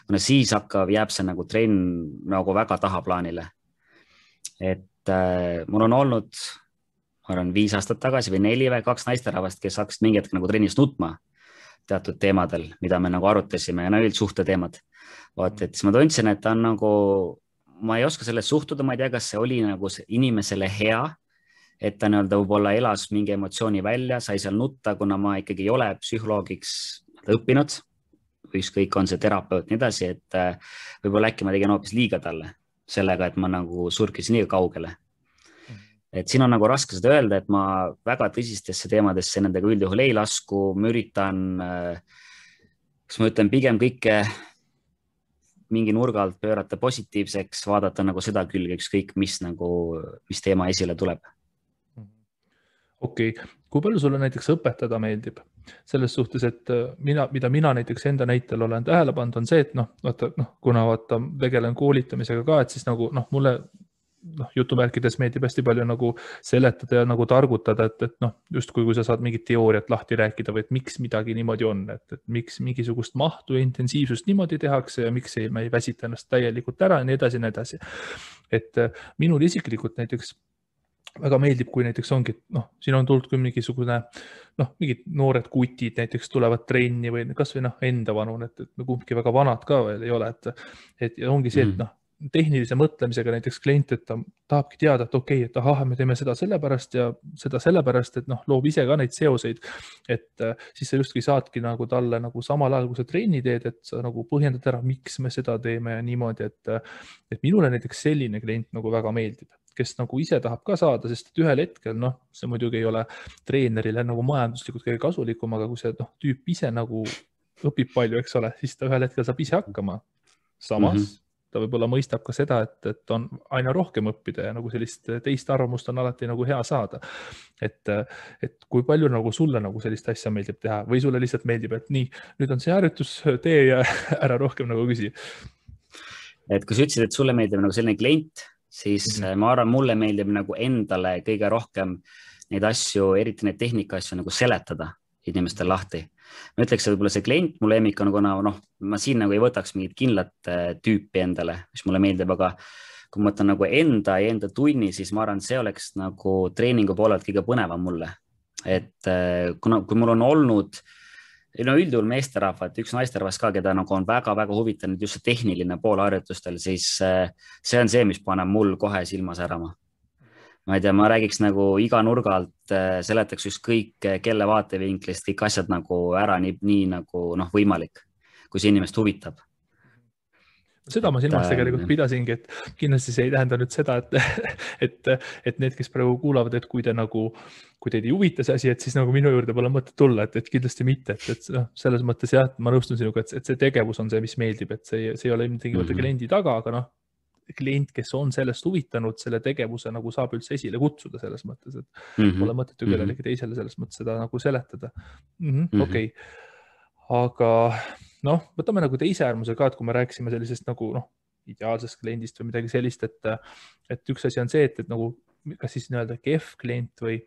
Kuna siis jääb see nagu trenn nagu väga tahaplaanile. Et mul on olnud, ma arvan, 5 aastat tagasi või 4 või 2 naisterahvast, kes hakkasid mingi hetk nagu trennis nutma teatud teemadel, mida me nagu arutasime ja üldsuhte teemad. Et siis ma tundsin, et ta on nagu, ma ei oska sellest suhtuda, ma ei tea, kas see oli nagu inimesele hea, et ta võib-olla elas mingi emotsiooni välja, sai seal nutta, kuna ma ikkagi ei ole psühholoogiks õppinud, ükskõik on see terapeut nii edasi, et võib-olla äkki ma tegin hoopis liiga talle sellega, et ma nagu surkisin nii kaugele. Et siin on nagu raske seda öelda, et ma väga tõsistesse teemadesse nendega üldjuhul ei lasku, ma üritan, kas ma ütlen, pigem kõike mingi nurga alt pöörata positiivseks, vaadata nagu seda külge, ükskõik mis teema esile tuleb. Okei. Kui palju sulle näiteks õpetada meeldib? Selles suhtes, et mida mina näiteks enda näitel olen tähele pannud, on see, et kuna tegelen koolitamisega ka, et siis nagu mulle jutumärkides meeldib hästi palju nagu seletada ja nagu targutada, et justkui kui sa saad mingit teooriat lahti rääkida või et miks midagi niimoodi on, et miks mingisugust mahtu ja intensiivsust niimoodi tehakse ja miks me ei väsita ennast täielikult ära ja nii edasi, nii edasi. Et minul isiklikult näiteks väga meeldib, kui näiteks ongi, siin on tulnud kui mingisugune, mingid noored kutid näiteks tulevad trenni või kas või enda vanun, et kumbki väga vanad ka veel ei ole, et ongi see, et tehnilise mõtlemisega näiteks klient, et ta tahabki teada, et okei, et ahah, me teeme seda sellepärast ja seda sellepärast, et loob ise ka neid seoseid, et siis sa justki saadki nagu talle nagu samal ajal, kui sa trenni teed, et sa nagu põhjendad ära, miks me seda teeme ja niimoodi, et minule näiteks selline klient nagu väga meeldib, kes nagu ise tahab ka saada, sest et ühel hetkel, see muidugi ei ole treenerile nagu majanduslikult kõige kasulikum, aga kui see tüüp ise nagu õpib palju, eks ole, siis ta ühel hetkel saab ise hakkama. Samas ta võib-olla mõistab ka seda, et on aina rohkem õppida ja nagu sellist teist arvamust on alati nagu hea saada. Et kui palju nagu sulle nagu sellist asja meeldib teha või sulle lihtsalt meeldib, et nii, nüüd on see harjutus, tee ja ära rohkem nagu küsi. Et kui sa ütlesid, et sulle meeldib nagu selline klient, siis ma arvan, mulle meeldib nagu endale kõige rohkem neid asju, eriti neid tehnika asju nagu seletada inimestel lahti. Ma ütleks, et võib-olla see klient mu lemmik on, kuna ma siin nagu ei võtaks mingit kindlat tüüpi endale, mis mulle meeldib, aga kui ma mõtlen nagu enda tunni, siis ma arvan, see oleks nagu treeningu poolelt kõige põnevam mulle. Et kui mul on olnud üldjuhul meesterahvad, üks naisterahvas ka, keda nagu on väga-väga huvitanud just see tehniline pool harjutustel, siis see on see, mis paneb mul kohe silma särama. Ma ei tea, ma räägiks nagu iga nurga alt, seletaks ükskõik kelle vaatevinklist kõik asjad nagu ära nii nagu võimalik, kui see inimest huvitab. Seda ma silmas tegelikult pidasingi, et kindlasti see ei tähenda nüüd seda, et need, kes praegu kuulavad, et kui teid ei huvita see asi, et siis nagu minu juurde pole mõtet tulla, et kindlasti mitte, et selles mõttes jah, ma nõustun sinuga, et see tegevus on see, mis meeldib, et see ei ole tingimata kliendi taga, aga klient, kes on sellest huvitanud, selle tegevuse nagu saab üldse esile kutsuda selles mõttes, et pole mõtet ju kellelegi teisele selles mõttes seda nagu seletada. Okei. Aga võtame nagu teise äärmuse ka, et kui me rääkisime sellisest nagu ideaalsest kliendist või midagi sellist, et üks asi on see, et nagu kas siis nii-öelda kehv klient või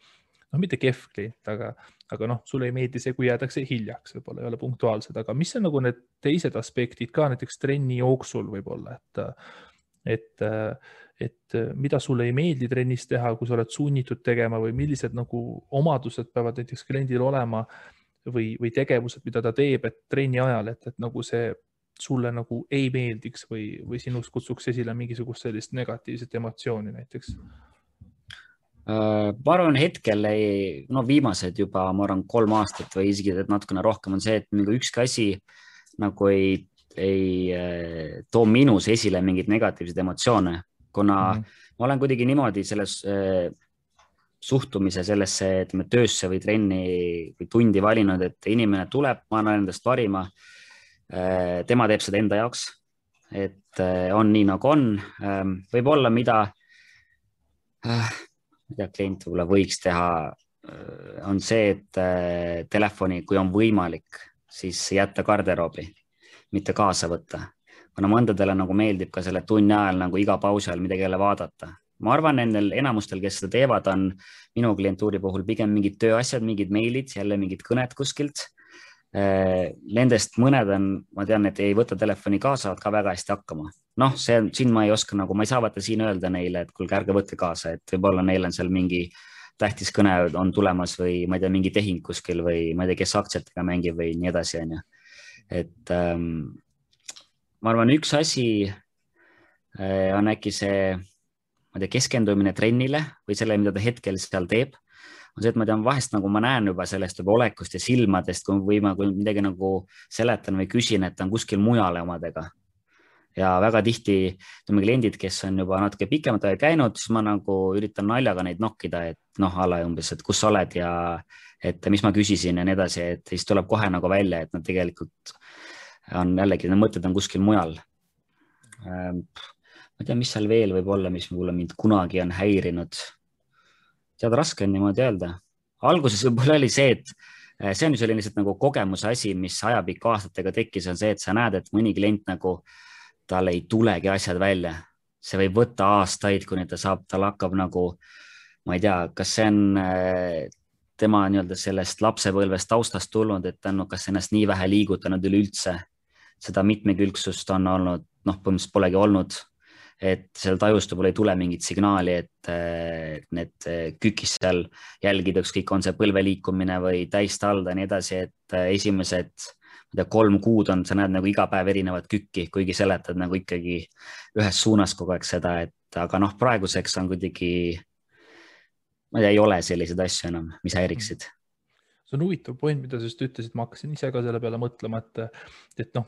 noh, mitte kehv klient, aga noh, sulle ei meeldi see, kui jäädakse hiljaks, võib-olla ei ole punktuaalsed, aga mis on nagu need teised aspektid ka näiteks trenni jooksul võib-olla, et mida sulle ei meeldi trennis teha, kui sa oled sunnitud tegema või millised nagu omadused peavad näiteks kliendil olema või tegevused, mida ta teeb, et trenni ajal, et nagu see sulle nagu ei meeldiks või sinust kutsuks esile mingisugust sellist negatiivset emotsiooni näiteks? Ma arvan, hetkel viimased juba, ma arvan, 3 aastat või isegi natukene rohkem on see, et mingi ükski asi nagu ei too minus esile mingeid negatiivseid emotsioone, kuna ma olen kuidagi niimoodi selles suhtumise sellesse, ütleme, töösse või trenni või tundi valinud, et inimene tuleb, ma annan endast parima. Tema teeb seda enda jaoks, et on nii nagu on. Võib-olla mida klient võib-olla võiks teha, on see, et telefoni, kui on võimalik, siis jätta garderoobi, mitte kaasa võtta. Kuna mõndadele nagu meeldib ka selle tunni ajal nagu iga pausi ajal midagi jälle vaadata. Ma arvan, nendel enamustel, kes seda teevad, on minu klientuuri puhul pigem mingid tööasjad, mingid meilid, jälle mingid kõned kuskilt. Nendest mõned on, ma tean, et ei võta telefoni kaasa, saavad ka väga hästi hakkama. Noh, siin ma ei oska nagu, ma ei saa vaata siin öelda neile, et kuulge, ärge võtke kaasa, et võib-olla neil on seal mingi tähtis kõne on tulemas või ma ei tea, mingi tehing kuskil või ma ei tea, kes aktsiatega mängib või nii edasi, on ju. Et ma arvan, üks asi on äkki see, ma ei tea, keskendumine trennile või selle, mida ta hetkel seal teeb. On see, et ma tean, vahest nagu ma näen juba sellest juba olekust ja silmadest, kui ma midagi nagu seletan või küsin, et ta on kuskil mujale omadega. Ja väga tihti kliendid, kes on juba natuke pikemat aega käinud, siis ma nagu üritan naljaga neid nokkida, et ala umbes, et kus sa oled ja et mis ma küsisin ja nii edasi, et siis tuleb kohe nagu välja, et nad tegelikult on jällegi, need mõtted on kuskil mujal. Ma ei tea, mis seal veel võib olla, mis mulle mind kunagi on häirinud. Tead, raske on niimoodi öelda. Alguses võib-olla oli see, et see on ju selline nagu kogemuse asi, mis ajapikku aastatega tekkis, on see, et sa näed, et mõni klient nagu tal ei tulegi asjad välja. See võib võtta aastaid, kuni tal hakkab nagu, ma ei tea, kas see on tema nii-öelda sellest lapsepõlvest taustast tulnud, et ta on kas ennast nii vähe liigutanud üleüldse. Seda mitmekülgsust on olnud, põhimõtteliselt polegi olnud. Et seal tajust võib-olla ei tule mingit signaali, et need kükis seal jälgida, ükskõik on see põlve liikumine või täistalda ja nii edasi, et esimesed 3 kuud on, sa näed nagu iga päev erinevat kükki, kuigi seletad nagu ikkagi ühes suunas kogu aeg seda, et aga praeguseks on kuidagi, ma ei tea, ei ole selliseid asju enam, mis häiriksid. See on huvitav point, mida sa just ütlesid, ma hakkasin ise ka selle peale mõtlema, et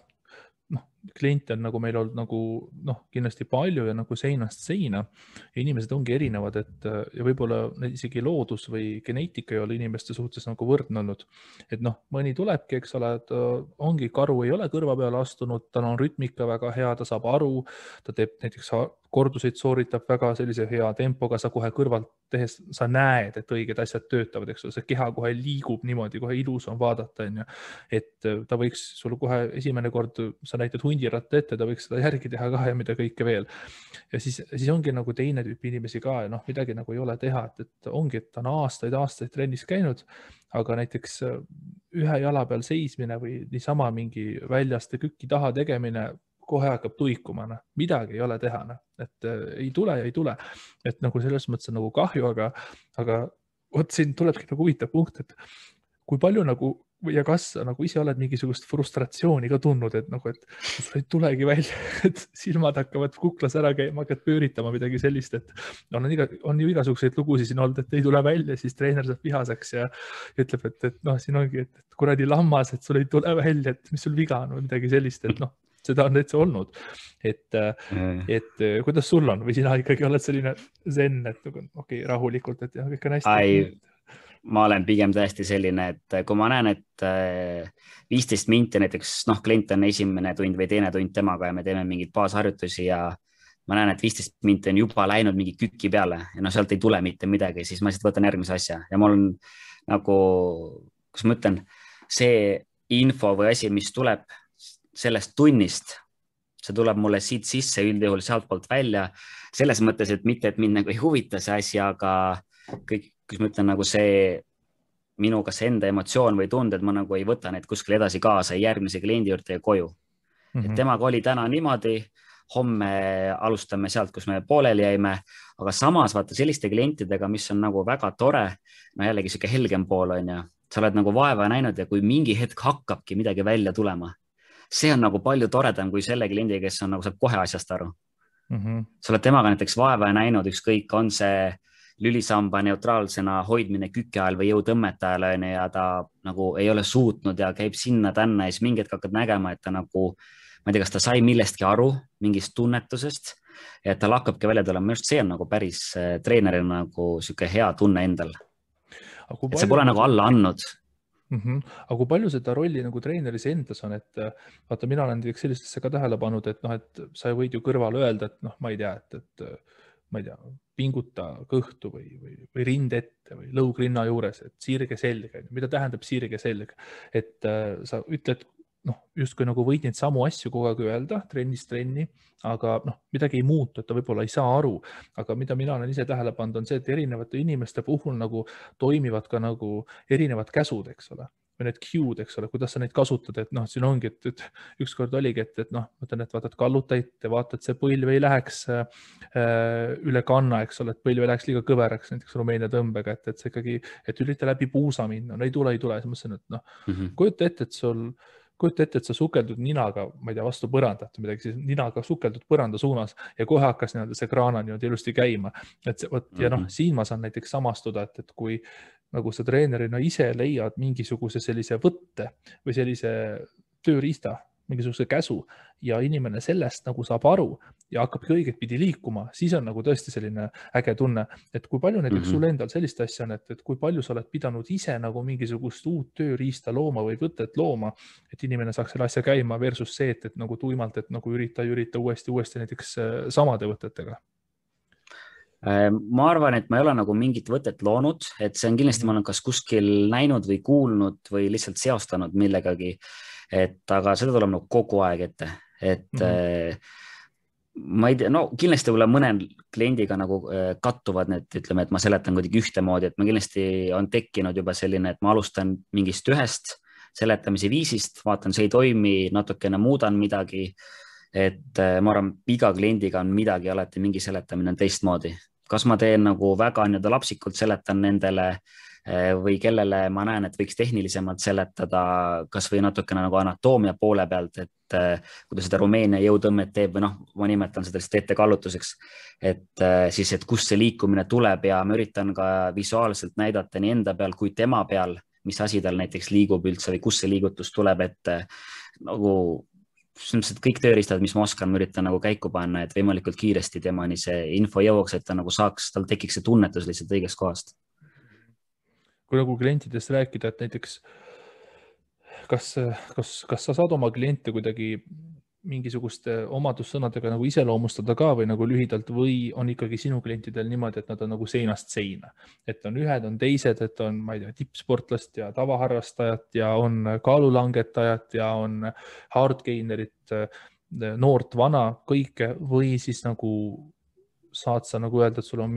kliente on nagu meil olnud nagu kindlasti palju ja nagu seinast seina ja inimesed ongi erinevad, et ja võib-olla isegi loodus või geneetika ei ole inimeste suhtes nagu võrdne olnud. Et mõni tulebki, eks ole, et ongi karu, ei ole kõrva peale astunud, tal on rütmika väga hea, ta saab aru, ta teeb näiteks korduseid, sooritab väga sellise hea tempoga, sa kohe kõrvalt tehes, sa näed, et õiged asjad töötavad, eks ole, see keha kohe liigub niimoodi, kohe ilus on vaadata, et ta võiks sul kohe esimene kord, sa näitad hundiratta ette, ta võiks seda järgi teha ka ja mida kõike veel. Ja siis ongi nagu teine tüüp inimesi ka ja midagi nagu ei ole teha, et ongi, et ta on aastaid trennis käinud, aga näiteks ühe jala peal seismine või niisama mingi väljaste kükki taha tegemine kohe hakkab tuikuma, midagi ei ole teha, et ei tule ja ei tule. Et nagu selles mõttes on nagu kahju, aga vot siin tulebki nagu huvitav punkt, et kui palju nagu ja kas nagu ise oled mingisugust frustratsiooni ka tundnud, et sul ei tulegi välja, et silmad hakkavad kuklas ära käima, hakkad pööritama midagi sellist, et on ju igasuguseid lugusid siin olnud, et ei tule välja, siis treener saab vihaseks ja ütleb, et siin ongi, et kuradi lammas, et sul ei tule välja, et mis sul viga on või midagi sellist, et seda on täitsa olnud, et kuidas sul on või sina ikkagi oled selline zen, et okei, rahulikult, et kõik on hästi. Ma olen pigem täiesti selline, et kui ma näen, et 15 minti näiteks, klient on esimene tund või teine tund temaga ja me teeme mingeid baasharjutusi ja ma näen, et 15 minti on juba läinud mingi küki peale ja sealt ei tule mitte midagi, siis ma lihtsalt võtan järgmise asja ja mul on nagu, kus ma ütlen, see info või asi, mis tuleb sellest tunnist, see tuleb mulle siit sisse üldjuhul sealt poolt välja, selles mõttes, et mitte, et mind nagu ei huvita see asi, aga kus ma ütlen nagu see minu kas enda emotsioon või tunded, ma nagu ei võta neid kuskil edasi kaasa järgmise kliendi juurde ja koju. Et temaga oli täna niimoodi, homme alustame sealt, kus me pooleli jäime, aga samas vaata selliste klientidega, mis on nagu väga tore, no jällegi siuke helgem pool on ju, sa oled nagu vaeva näinud ja kui mingi hetk hakkabki midagi välja tulema, see on nagu palju toredam kui selle kliendi, kes on nagu saab kohe asjast aru. Sa oled temaga näiteks vaeva näinud, ükskõik on see lülisamba neutraalsena hoidmine kükke ajal või jõutõmmete ajal ja ta nagu ei ole suutnud ja käib sinna-tänna ja siis mingi hetk hakkad nägema, et ta nagu, ma ei tea, kas ta sai millestki aru, mingist tunnetusest, et tal hakkabki välja tulema, minu arust see on nagu päris treenerina nagu siuke hea tunne endal. Et see pole nagu alla andnud. Aga kui palju seda rolli nagu treeneris endas on, et vaata, mina olen sellistesse ka tähele pannud, et noh, et sa võid ju kõrval öelda, et noh, ma ei tea, et ma ei tea, pinguta kõhtu või rind ette või lõug rinna juures, et sirge selg, mida tähendab sirge selg, et sa ütled, noh, justkui nagu võid neid samu asju kogu aeg öelda trennist trenni, aga noh, midagi ei muutu, et ta võib-olla ei saa aru, aga mida mina olen ise tähele pannud, on see, et erinevate inimeste puhul nagu toimivad ka nagu erinevad käsud, eks ole, või need cue'd, eks ole, kuidas sa neid kasutad, et noh, siin ongi, et ükskord oligi, et noh, mõtlen, et vaatad kallutajat ja vaatad, see põlv ei läheks üle kanna, eks ole, et põlv ei läheks liiga kõveraks, näiteks Rumeenia tõmbega, et see ikkagi, et ürita läbi puusa minna, no ei tule, siis mõtlesin, et noh, kujuta ette, et sa sukeldud ninaga, ma ei tea, vastu põrandat või midagi, siis ninaga sukeldud põranda suunas ja kohe hakkas see kraana niimoodi ilusti käima. Ja noh, siin ma saan näiteks samastuda, et kui nagu sa treenerina ise leiad mingisuguse sellise võtte või sellise tööriista, mingisuguse käsu ja inimene sellest nagu saab aru ja hakkabki õiget pidi liikuma, siis on nagu tõesti selline äge tunne, et kui palju näiteks sul endal sellist asja on, et kui palju sa oled pidanud ise nagu mingisugust uut tööriista looma või võtet looma, et inimene saaks selle asja käima versus see, et nagu tuimalt, et nagu ürita uuesti näiteks samade võtetega. Ma arvan, et ma ei ole nagu mingit võtet loonud, et see on kindlasti, ma olen kas kuskil näinud või kuulnud või lihtsalt seostanud millegagi, aga seda tuleb nagu kogu aeg ette, et ma ei tea, no kindlasti võib-olla mõnel kliendiga nagu kattuvad need, ütleme, et ma seletan kuidagi ühtemoodi, et ma kindlasti on tekkinud juba selline, et ma alustan mingist ühest seletamise viisist, vaatan, see ei toimi, natukene muudan midagi, et ma arvan, iga kliendiga on midagi alati, mingi seletamine on teistmoodi. Kas ma teen nagu väga nii-öelda lapsikult seletan nendele või kellele ma näen, et võiks tehnilisemalt seletada, kas või natukene nagu anatoomia poole pealt, et kui ta seda Rumeenia jõutõmmet teeb või noh, ma nimetan seda lihtsalt ettekallutuseks, et siis, et kust see liikumine tuleb ja ma üritan ka visuaalselt näidata nii enda peal kui tema peal, mis asi tal näiteks liigub üldse või kust see liigutus tuleb, et nagu kõik tööriistad, mis ma oskan, ma üritan nagu käiku panna, et võimalikult kiiresti temani see info jõuaks, et ta nagu saaks, tal tekiks see tunnetus lihtsalt õigest kohast. Kui nagu klientidest rääkida, et näiteks kas sa saad oma kliente kuidagi mingisuguste omadussõnadega nagu iseloomustada ka või nagu lühidalt või on ikkagi sinu klientidel niimoodi, et nad on nagu seinast seina, et on ühed, on teised, et on, ma ei tea, tippsportlast ja tavaharrastajat ja on kaalulangetajat ja on hardgainerit, noort, vana, kõike või siis nagu saad sa nagu öelda, et sul on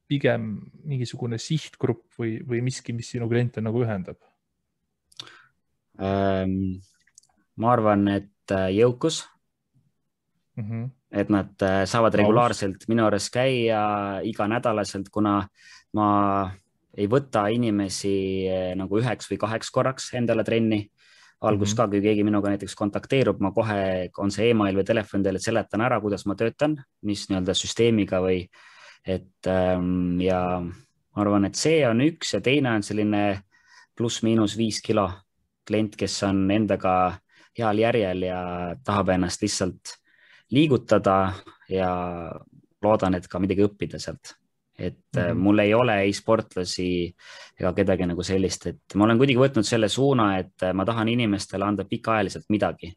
pigem mingisugune sihtgrupp või miski, mis sinu kliente nagu ühendab? Ma arvan, et jõukus, et nad saavad regulaarselt minu juures käia iganädalaselt, kuna ma ei võta inimesi nagu 1 või 2 korraks endale trenni. Algus ka, kui keegi minuga näiteks kontakteerub, ma kohe, on see email või telefon teile, seletan ära, kuidas ma töötan, mis nii-öelda süsteemiga või ja ma arvan, et see on üks ja teine on selline pluss-miinus 5 kilo klient, kes on endaga heal järjel ja tahab ennast lihtsalt liigutada ja loodan, et ka midagi õppida sealt. Et mul ei ole ei sportlasi ega kedagi nagu sellist, et ma olen kuidagi võtnud selle suuna, et ma tahan inimestele anda pikaajaliselt midagi.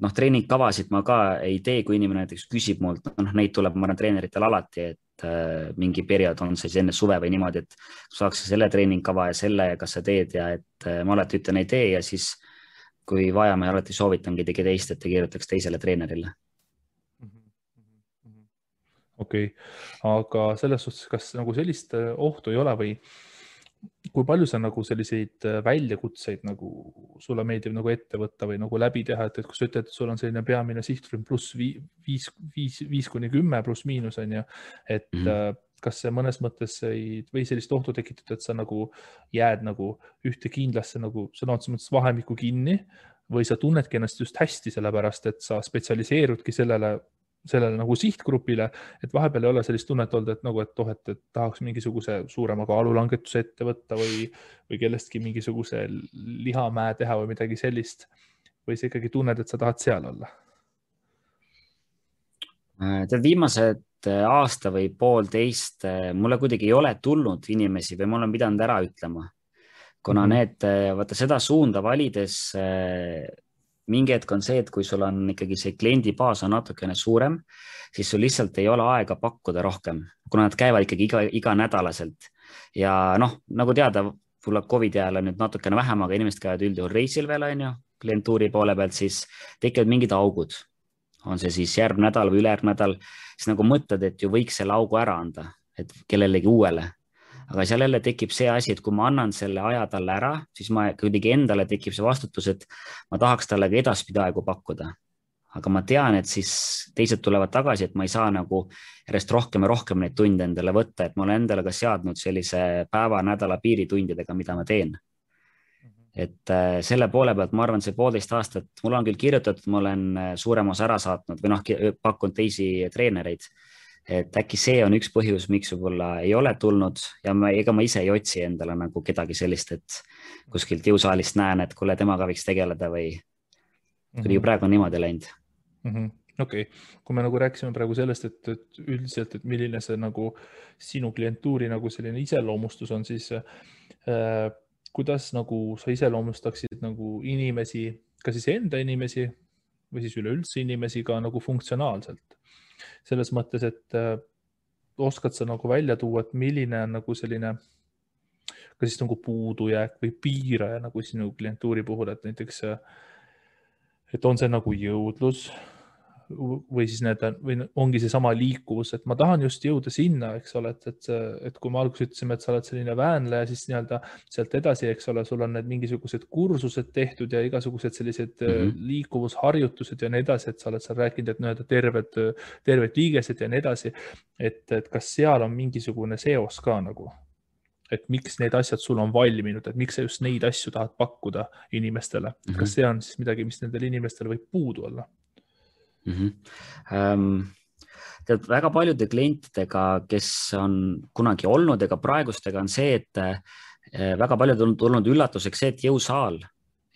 Noh, treeningkavasid ma ka ei tee, kui inimene näiteks küsib mult, neid tuleb, ma arvan, treeneritel alati, et mingi periood on siis enne suve või niimoodi, et saaks selle treeningkava ja selle, kas sa teed ja et ma alati ütlen ei tee ja siis kui vaja, ma alati soovitan kedagi teist, et ta kirjutaks teisele treenerile. okei. Aga selles suhtes, kas nagu sellist ohtu ei ole või kui palju sa nagu selliseid väljakutseid nagu sulle meeldib nagu ette võtta või nagu läbi teha, et kui sa ütled, et sul on selline peamine sihtrühm pluss 5–10 pluss miinus on ju, et kas see mõnes mõttes või sellist ohtu tekitada, et sa nagu jääd nagu ühte kindlasse nagu sõna otseses mõttes vahemikku kinni või sa tunnedki ennast just hästi sellepärast, et sa spetsialiseerudki sellele nagu sihtgrupile, et vahepeal ei ole sellist tunnet olnud, et nagu, et tahaks mingisuguse suurema kaalulangetuse ette võtta või kellestki mingisuguse lihamäe teha või midagi sellist. Või sa ikkagi tunned, et sa tahad seal olla? Tead, viimased aasta või poolteist mulle kuidagi ei ole tulnud inimesi või ma olen pidanud ära ütlema, kuna vaata seda suunda valides mingi hetk on see, et kui sul on ikkagi see kliendibaas on natukene suurem, siis sul lihtsalt ei ole aega pakkuda rohkem, kuna nad käivad ikkagi iga nädalaselt. Ja noh, nagu teada, tuleb COVID ajal nüüd natukene vähem, aga inimesed käivad üldjuhul reisil veel, on ju, klientuuri poole pealt, siis tekivad mingid augud. On see siis järgmine nädal või ülejärgmine nädal, siis nagu mõtled, et ju võiks selle augu ära anda, et kellelegi uuele. Aga seal jälle tekib see asi, et kui ma annan selle aja talle ära, siis ma kuidagi endale tekib see vastutus, et ma tahaks talle ka edaspidi aegu pakkuda. Aga ma tean, et siis teised tulevad tagasi, et ma ei saa nagu järjest rohkem ja rohkem neid tunde endale võtta, et ma olen endale ka seadnud sellise päeva, nädala piiritundidega, mida ma teen. Et selle poole pealt, ma arvan, see 1,5 aastat, mul on küll kirjutatud, ma olen suurem osa ära saatnud või noh, pakkunud teisi treenereid. Et äkki see on üks põhjus, miks võib-olla ei ole tulnud ja ega ma ise ei otsi endale nagu kedagi sellist, et kuskilt jõusaalist näen, et kuule, temaga võiks tegeleda või kuidagi praegu on niimoodi läinud. Okei. Kui me nagu rääkisime praegu sellest, et üldiselt, et milline see nagu sinu klientuuri nagu selline iseloomustus on, siis kuidas nagu sa iseloomustaksid nagu inimesi, ka siis enda inimesi või siis üleüldse inimesi ka nagu funktsionaalselt? Selles mõttes, et oskad sa nagu välja tuua, et milline on nagu selline ka siis nagu puudujääk või piiraja nagu sinu klientuuri puhul, et näiteks, et on see nagu jõudlus või siis või ongi see sama liikuvus, et ma tahan just jõuda sinna, eks ole, et kui me alguses ütlesime, et sa oled selline väänleja, siis nii-öelda sealt edasi, eks ole, sul on need mingisugused kursused tehtud ja igasugused sellised liikuvusharjutused ja nii edasi, et sa oled seal rääkinud, et nii-öelda terved liigesed ja nii edasi, et kas seal on mingisugune seos ka nagu, et miks need asjad sul on valminud, et miks sa just neid asju tahad pakkuda inimestele, kas see on siis midagi, mis nendel inimestel võib puudu olla? Tead, väga paljude klientidega, kes on kunagi olnud ega praegustega on see, et väga paljud on tulnud üllatuseks see, et jõusaal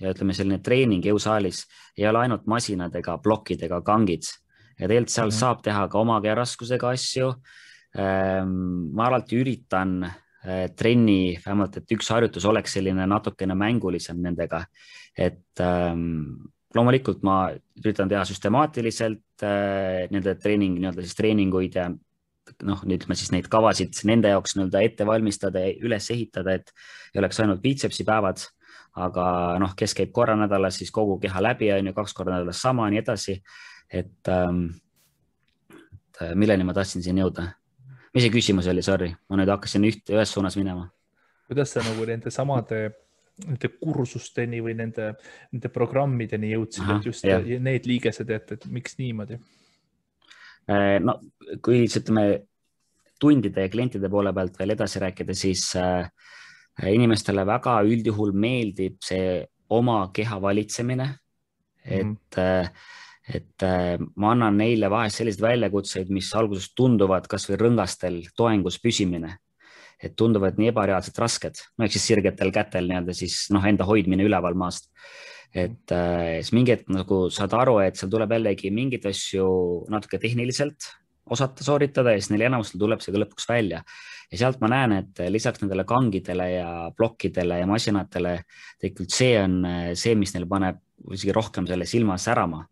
ja ütleme selline treening jõusaalis ei ole ainult masinad ega plokid ega kangid ja tegelikult seal saab teha ka oma raskusega asju. Ma alati üritan trenni, vähemalt, et üks harjutus oleks selline natukene mängulisem nendega, et loomulikult ma üritan teha süstemaatiliselt nende treeninguid ja noh, ütleme siis neid kavasid nende jaoks ette valmistada ja üles ehitada, et ei oleks ainult biitsepsi päevad, aga noh, kes käib korra nädalas, siis kogu keha läbi on ju 2 korda nädalas sama, nii edasi, et milleni ma tahtsin siin jõuda. Mis see küsimus oli, sorry, ma nüüd hakkasin ühes suunas minema. Kuidas sa nagu nende samade kursusteni või nende programmideni jõudsid, et just need liigesed, et miks niimoodi? No, kui ütleme tundide ja klientide poole pealt veel edasi rääkida, siis inimestele väga üldjuhul meeldib see oma keha valitsemine, et ma annan neile vahest selliseid väljakutseid, mis alguses tunduvad kas või rõngastel toengus püsimine, et tunduvad nii ebareaalselt rasked, no eks siis sirgetel kätel siis enda hoidmine üleval maast. Et siis mingi hetk nagu saad aru, et seal tuleb jällegi mingid asju natuke tehniliselt osata sooritada ja siis neil enamustel tuleb see ka lõpuks välja. Ja sealt ma näen, et lisaks nendele kangidele ja plokkidele ja masinatele tegelikult see on see, mis neil paneb isegi rohkem selle silma särama.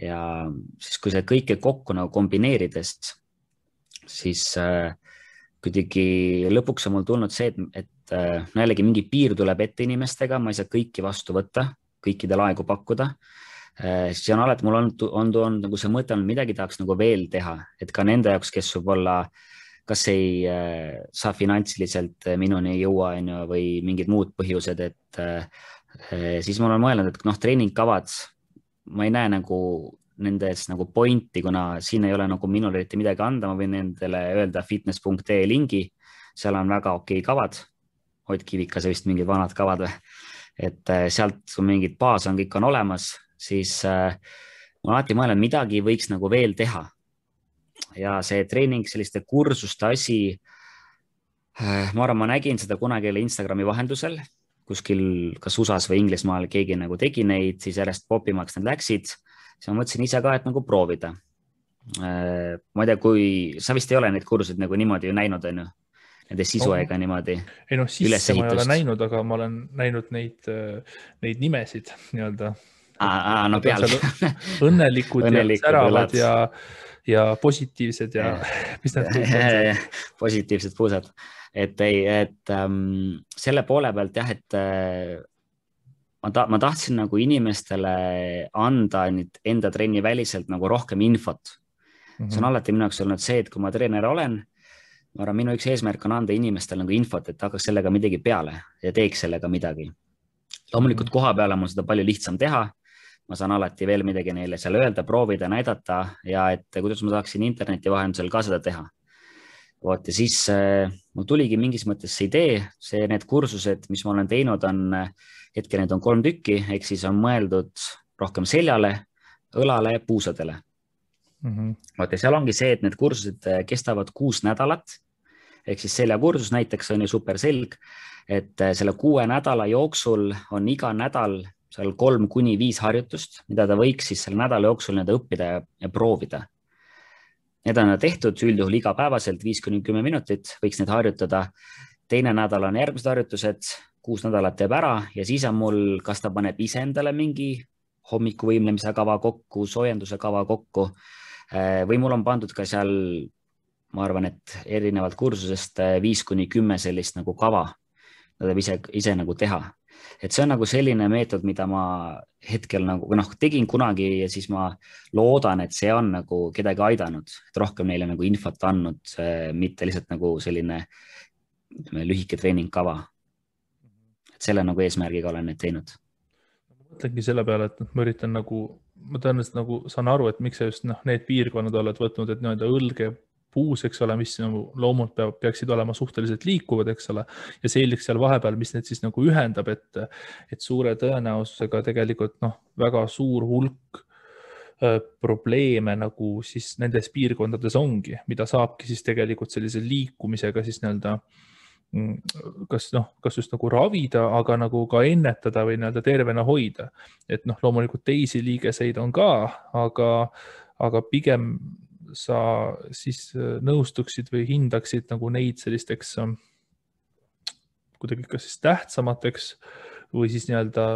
Ja siis kui see kõike kokku nagu kombineerides, siis kuidagi lõpuks on mul tulnud see, et jällegi mingi piir tuleb ette inimestega, ma ei saa kõiki vastu võtta, kõikidel aegu pakkuda. siis on alati, mul on nagu see mõte olnud, midagi tahaks nagu veel teha, et ka nende jaoks, kes võib-olla kas ei saa finantsiliselt minuni ei jõua, on ju, või mingid muud põhjused, et siis ma olen mõelnud, et noh, treeningkavad, ma ei näe nagu nendes nagu pointi, kuna siin ei ole nagu minul eriti midagi anda, ma võin nendele öelda fitness.ee lingi, seal on väga okei kavad, Ott Kivikase vist mingid vanad kavad või, et sealt mingid baas on, kõik on olemas, siis ma alati mõelnud, midagi võiks nagu veel teha. Ja see treening, selliste kursuste asi, ma arvan, ma nägin seda kunagi Instagrami vahendusel, kuskil kas USA-s või Inglismaal keegi nagu tegi neid, siis järjest popimaks need läksid. Siis ma mõtlesin ise ka, et nagu proovida. Ma ei tea, kui sa vist ei ole neid kursuseid nagu niimoodi ju näinud, on ju? Nende sisu ega niimoodi ei noh, sisse ma ei ole näinud, aga ma olen näinud neid nimesid nii-öelda. No peal. Õnnelikud ja säravad ja positiivsed ja mis need on? Positiivsed puusad. Et selle poole pealt jah, et ma tahtsin nagu inimestele anda enda trenni väliselt nagu rohkem infot. See on alati minu jaoks olnud see, et kui ma treener olen, ma arvan, minu üks eesmärk on anda inimestele nagu infot, et hakkaks sellega midagi peale ja teeks sellega midagi. Loomulikult koha peale on mul seda palju lihtsam teha. Ma saan alati veel midagi neile seal öelda, proovida, näidata ja et kuidas ma saaksin interneti vahendusel ka seda teha. Ja siis mul tuligi mingis mõttes see idee, need kursused, mis ma olen teinud, hetkel need on 3 tükki, ehk siis on mõeldud rohkem seljale, õlale ja puusadele. Ja seal ongi see, et need kursused kestavad 6 nädalat, ehk siis seljakursus näiteks on ju superselg, et selle 6 nädala jooksul on iga nädal seal 3-5 harjutust, mida ta võiks siis selle nädala jooksul õppida ja proovida. Need on tehtud üldjuhul igapäevaselt 5-10 minutit, võiks need harjutada. Teine nädal on järgmised harjutused, 6 nädalat teeb ära ja siis on mul, kas ta paneb ise endale mingi hommikuvõimlemise kava kokku, soojenduse kava kokku või mul on pandud ka seal, ma arvan, et erinevalt kursusest 5-10 sellist nagu kava, mida ise nagu teha. Et see on nagu selline meetod, mida ma hetkel nagu tegin kunagi ja siis ma loodan, et see on nagu kedagi aidanud, et rohkem neile nagu infot andnud, mitte lihtsalt nagu selline lühike treeningkava. Et selle nagu eesmärgiga olen need teinud. Ma mõtlengi selle peale, et ma üritan nagu, ma tõenäoliselt nagu saan aru, et miks sa just need piirkonnad oled võtnud, et nii-öelda õlge puus, eks ole, mis nagu loomult peaksid olema suhteliselt liikuvad, eks ole, ja selgeks seal vahepeal, mis need siis nagu ühendab, et suure tõenäosusega tegelikult väga suur hulk probleeme nagu siis nendes piirkondades ongi, mida saabki siis tegelikult sellise liikumisega siis nii-öelda kas just nagu ravida, aga nagu ka ennetada või nii-öelda tervena hoida. Et loomulikult teisi liigeseid on ka, aga pigem sa siis nõustuksid või hindaksid nagu neid sellisteks kuidagi kas siis tähtsamateks või siis nii-öelda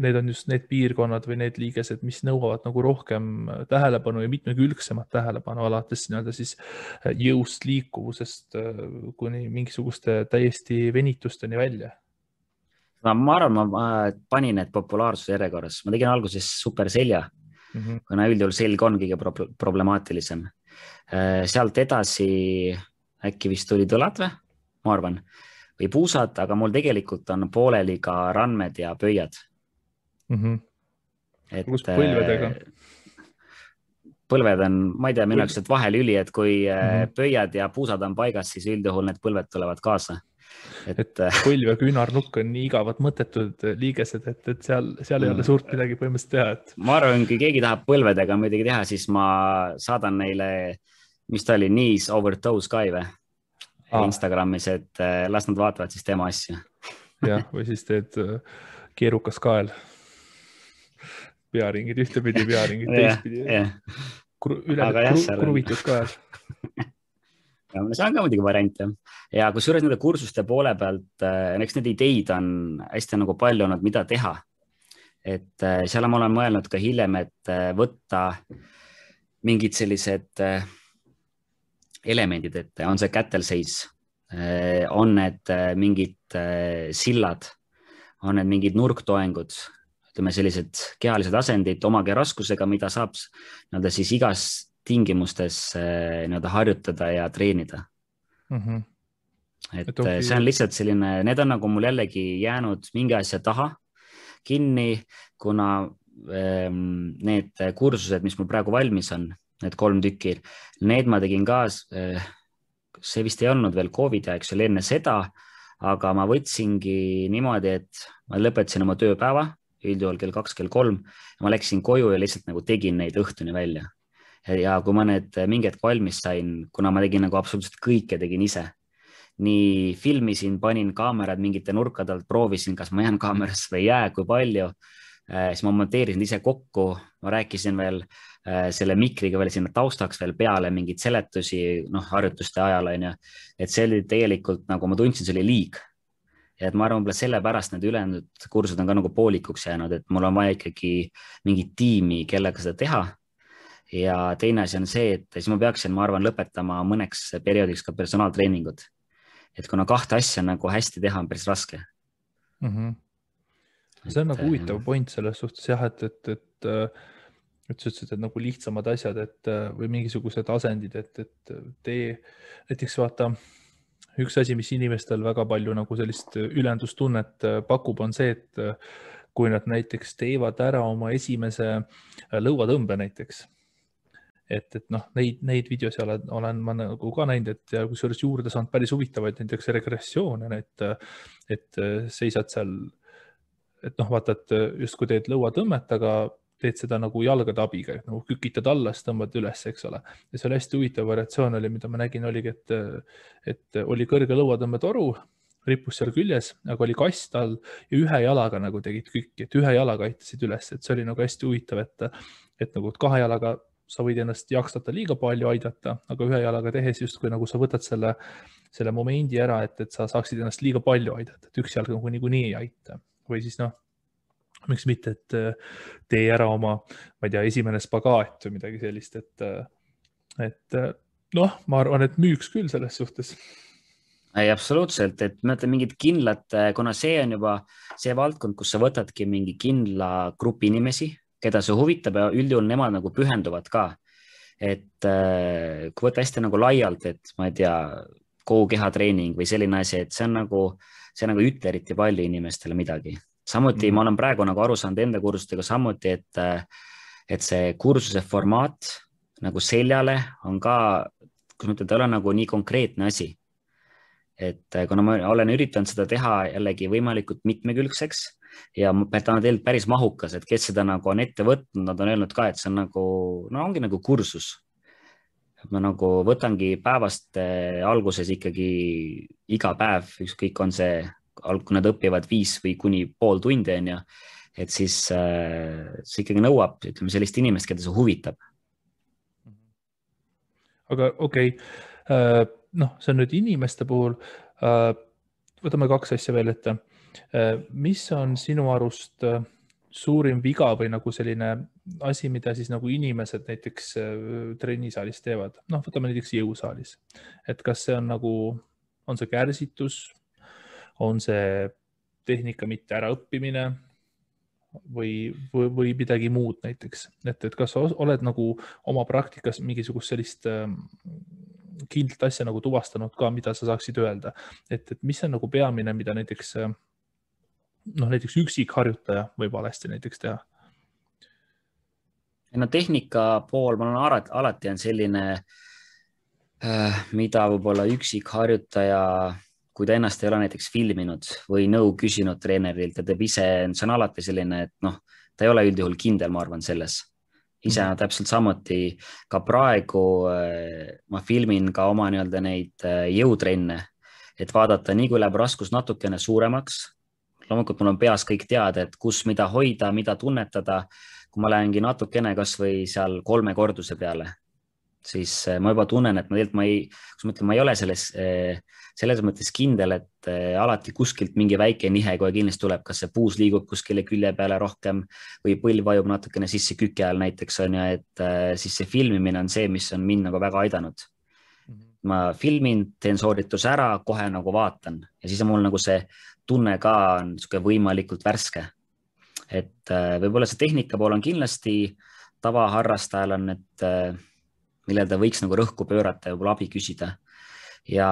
need on just need piirkonnad või need liigesed, mis nõuavad nagu rohkem tähelepanu ja mitmekülgsemat tähelepanu alates nii-öelda siis jõust, liikuvusest kuni mingisuguste täiesti venitusteni välja. Ma arvan, ma panin need populaarsuse järjekorras. Ma tegin alguses superselja, kuna üldjuhul selg on kõige problemaatilisem. Sealt edasi äkki vist tulid õlad või, ma arvan, või puusad, aga mul tegelikult on pooleli ka randmed ja pöiad. Kus põlvedega? Põlved on, ma ei tea, minu jaoks vahelüli, et kui pöiad ja puusad on paigas, siis üldjuhul need põlved tulevad kaasa. Et põlv ja küünarnukk on nii igavad mõttetud liigesed, et seal ei ole suurt midagi põhimõtteliselt teha. Ma arvan, kui keegi tahab põlvedega midagi teha, siis ma saadan neile, mis ta oli, knees over toes ka või Instagramis, et las nad vaatavad siis tema asju. Jah, või siis teed keerukas kael. Pearingid ühtepidi, pearingid teistpidi. Kruvitud kael. See on ka muidugi variant. Ja kui suures nende kursuste poole pealt, eks need ideid on hästi nagu palju olnud, mida teha. Et seal ma olen mõelnud ka hiljem, et võtta mingid sellised elemendid, et on see kätelseis, on need mingid sillad, on need mingid nurktoengud, ütleme sellised kehalised asendid oma kehāraskusega, mida saab nii-öelda siis igas tingimustes nii-öelda harjutada ja treenida. Et okay. See on lihtsalt selline, need on nagu mul jällegi jäänud mingi asja taha kinni, kuna need kursused, mis mul praegu valmis on, need 3 tükki, need ma tegin ka, see vist ei olnud veel COVID aeg, see oli enne seda, aga ma võtsingi niimoodi, et ma lõpetasin oma tööpäeva, üldjuhul kell 2, kell 3, ja ma läksin koju ja lihtsalt nagu tegin neid õhtuni välja. Ja kui ma need mingi hetk valmis sain, kuna ma tegin nagu absoluutselt kõike, tegin ise. Nii filmisin, panin kaamerad mingite nurkade alt, proovisin, kas ma jään kaamerasse või ei jää, kui palju. Siis ma monteerisin ise kokku, ma rääkisin veel selle mikriga veel sinna taustaks veel peale mingid seletusi, harjutuste ajal on ja, et see oli tegelikult nagu ma tundsin, see oli liig. Ja et ma arvan, sellepärast need ülejäänud kursused on ka nagu poolikuks jäänud, et mul on vaja ikkagi mingit tiimi, kellega seda teha. Ja teine asi on see, et siis ma peaksin, ma arvan, lõpetama mõneks perioodiks ka personaaltreeningud. Et kuna 2 asja nagu hästi teha on päris raske. See on nagu huvitav point selles suhtes jah, et sa ütlesid, et nagu lihtsamad asjad, või mingisugused asendid, et tee näiteks vaata, üks asi, mis inimestel väga palju nagu sellist ülendustunnet pakub, on see, et kui nad näiteks teevad ära oma esimese lõuatõmbe näiteks, et neid videosi olen ma nagu ka näinud, et ja kusjuures juurde saanud päris huvitavaid näiteks regressioone, et seisad seal, et vaata, et just kui teed lõuatõmmet, aga teed seda nagu jalgade abiga, nagu kükitad alla, siis tõmbad üles, eks ole. Ja see oli hästi huvitav variatsioon oli, mida ma nägin, oligi, et oli kõrge lõuatõmbetoru, rippus seal küljes, aga oli kast all ja ühe jalaga nagu tegid kükki, et ühe jalaga aitasid üles, et see oli nagu hästi huvitav, et nagu 2 jalaga sa võid ennast jaksata liiga palju aidata, aga ühe jalaga tehes justkui nagu sa võtad selle momendi ära, et sa saaksid ennast liiga palju aidata, et 1 jalg nagu niikuinii ei aita. Või siis miks mitte, et tee ära oma, ma ei tea, esimene spagaat või midagi sellist, et ma arvan, et müüks küll selles suhtes. Ei, absoluutselt, et ma ütlen mingid kindlad, kuna see on juba see valdkond, kus sa võtadki mingi kindla grupi inimesi, keda see huvitab ja üldjuhul nemad nagu pühenduvad ka. Et kui võtta hästi nagu laialt, et ma ei tea, kogu kehatreening või selline asi, et see nagu ütle eriti palju inimestele midagi. Samuti ma olen praegu nagu aru saanud enda kursustega samuti, et see kursuse formaat nagu seljale on ka, kus ma ütlen, ta ei ole nagu nii konkreetne asi. Et kuna ma olen üritanud seda teha jällegi võimalikult mitmekülgseks ja ta on tegelikult päris mahukas, et kes seda nagu on ette võtnud, nad on öelnud ka, et see on nagu, ongi nagu kursus. Ma nagu võtangi päevast alguses ikkagi iga päev, ükskõik on see, kui nad õpivad 5 või kuni pool tundi on ja, et siis see ikkagi nõuab, ütleme, sellist inimest, keda see huvitab. Aga okei, see on nüüd inimeste puhul, võtame 2 asja veel ette. Mis on sinu arust suurim viga või nagu selline asi, mida siis nagu inimesed näiteks trennisaalis teevad? Võtame näiteks jõusaalis. Et kas see on nagu, on see kärsitus, on see tehnika mitte äraõppimine või midagi muud näiteks? Et kas sa oled nagu oma praktikas mingisugust sellist kindlat asja nagu tuvastanud ka, mida sa saaksid öelda? Et mis on nagu peamine, mida näiteks üksikharjutaja võib valesti näiteks teha? Tehnika pool, ma olen alati on selline, mida võib-olla üksikharjutaja, kui ta ennast ei ole näiteks filminud või nõu küsinud treenerilt ja teeb ise, see on alati selline, et ta ei ole üldjuhul kindel, ma arvan, selles. Ise täpselt samuti ka praegu ma filmin ka oma nii-öelda neid jõutrenne, et vaadata nii kui läheb raskus natukene suuremaks. Loomulikult mul on peas kõik teada, et kus mida hoida, mida tunnetada. Kui ma lähengi natukene kas või seal 3 korduse peale, siis ma juba tunnen, et ma ei ole selles mõttes kindel, et alati kuskilt mingi väike nihe kohe kindlasti tuleb, kas see puus liigub kuskile külje peale rohkem või põlv vajub natukene sisse küke all näiteks on ja, et siis see filmimine on see, mis on mind nagu väga aidanud. Ma filmin, teen soorituse ära, kohe nagu vaatan ja siis on mul nagu see tunne ka on võimalikult värske. et võib-olla see tehnika pool on kindlasti tavaharrastajal on, et millel ta võiks nagu rõhku pöörata ja võib-olla abi küsida. Ja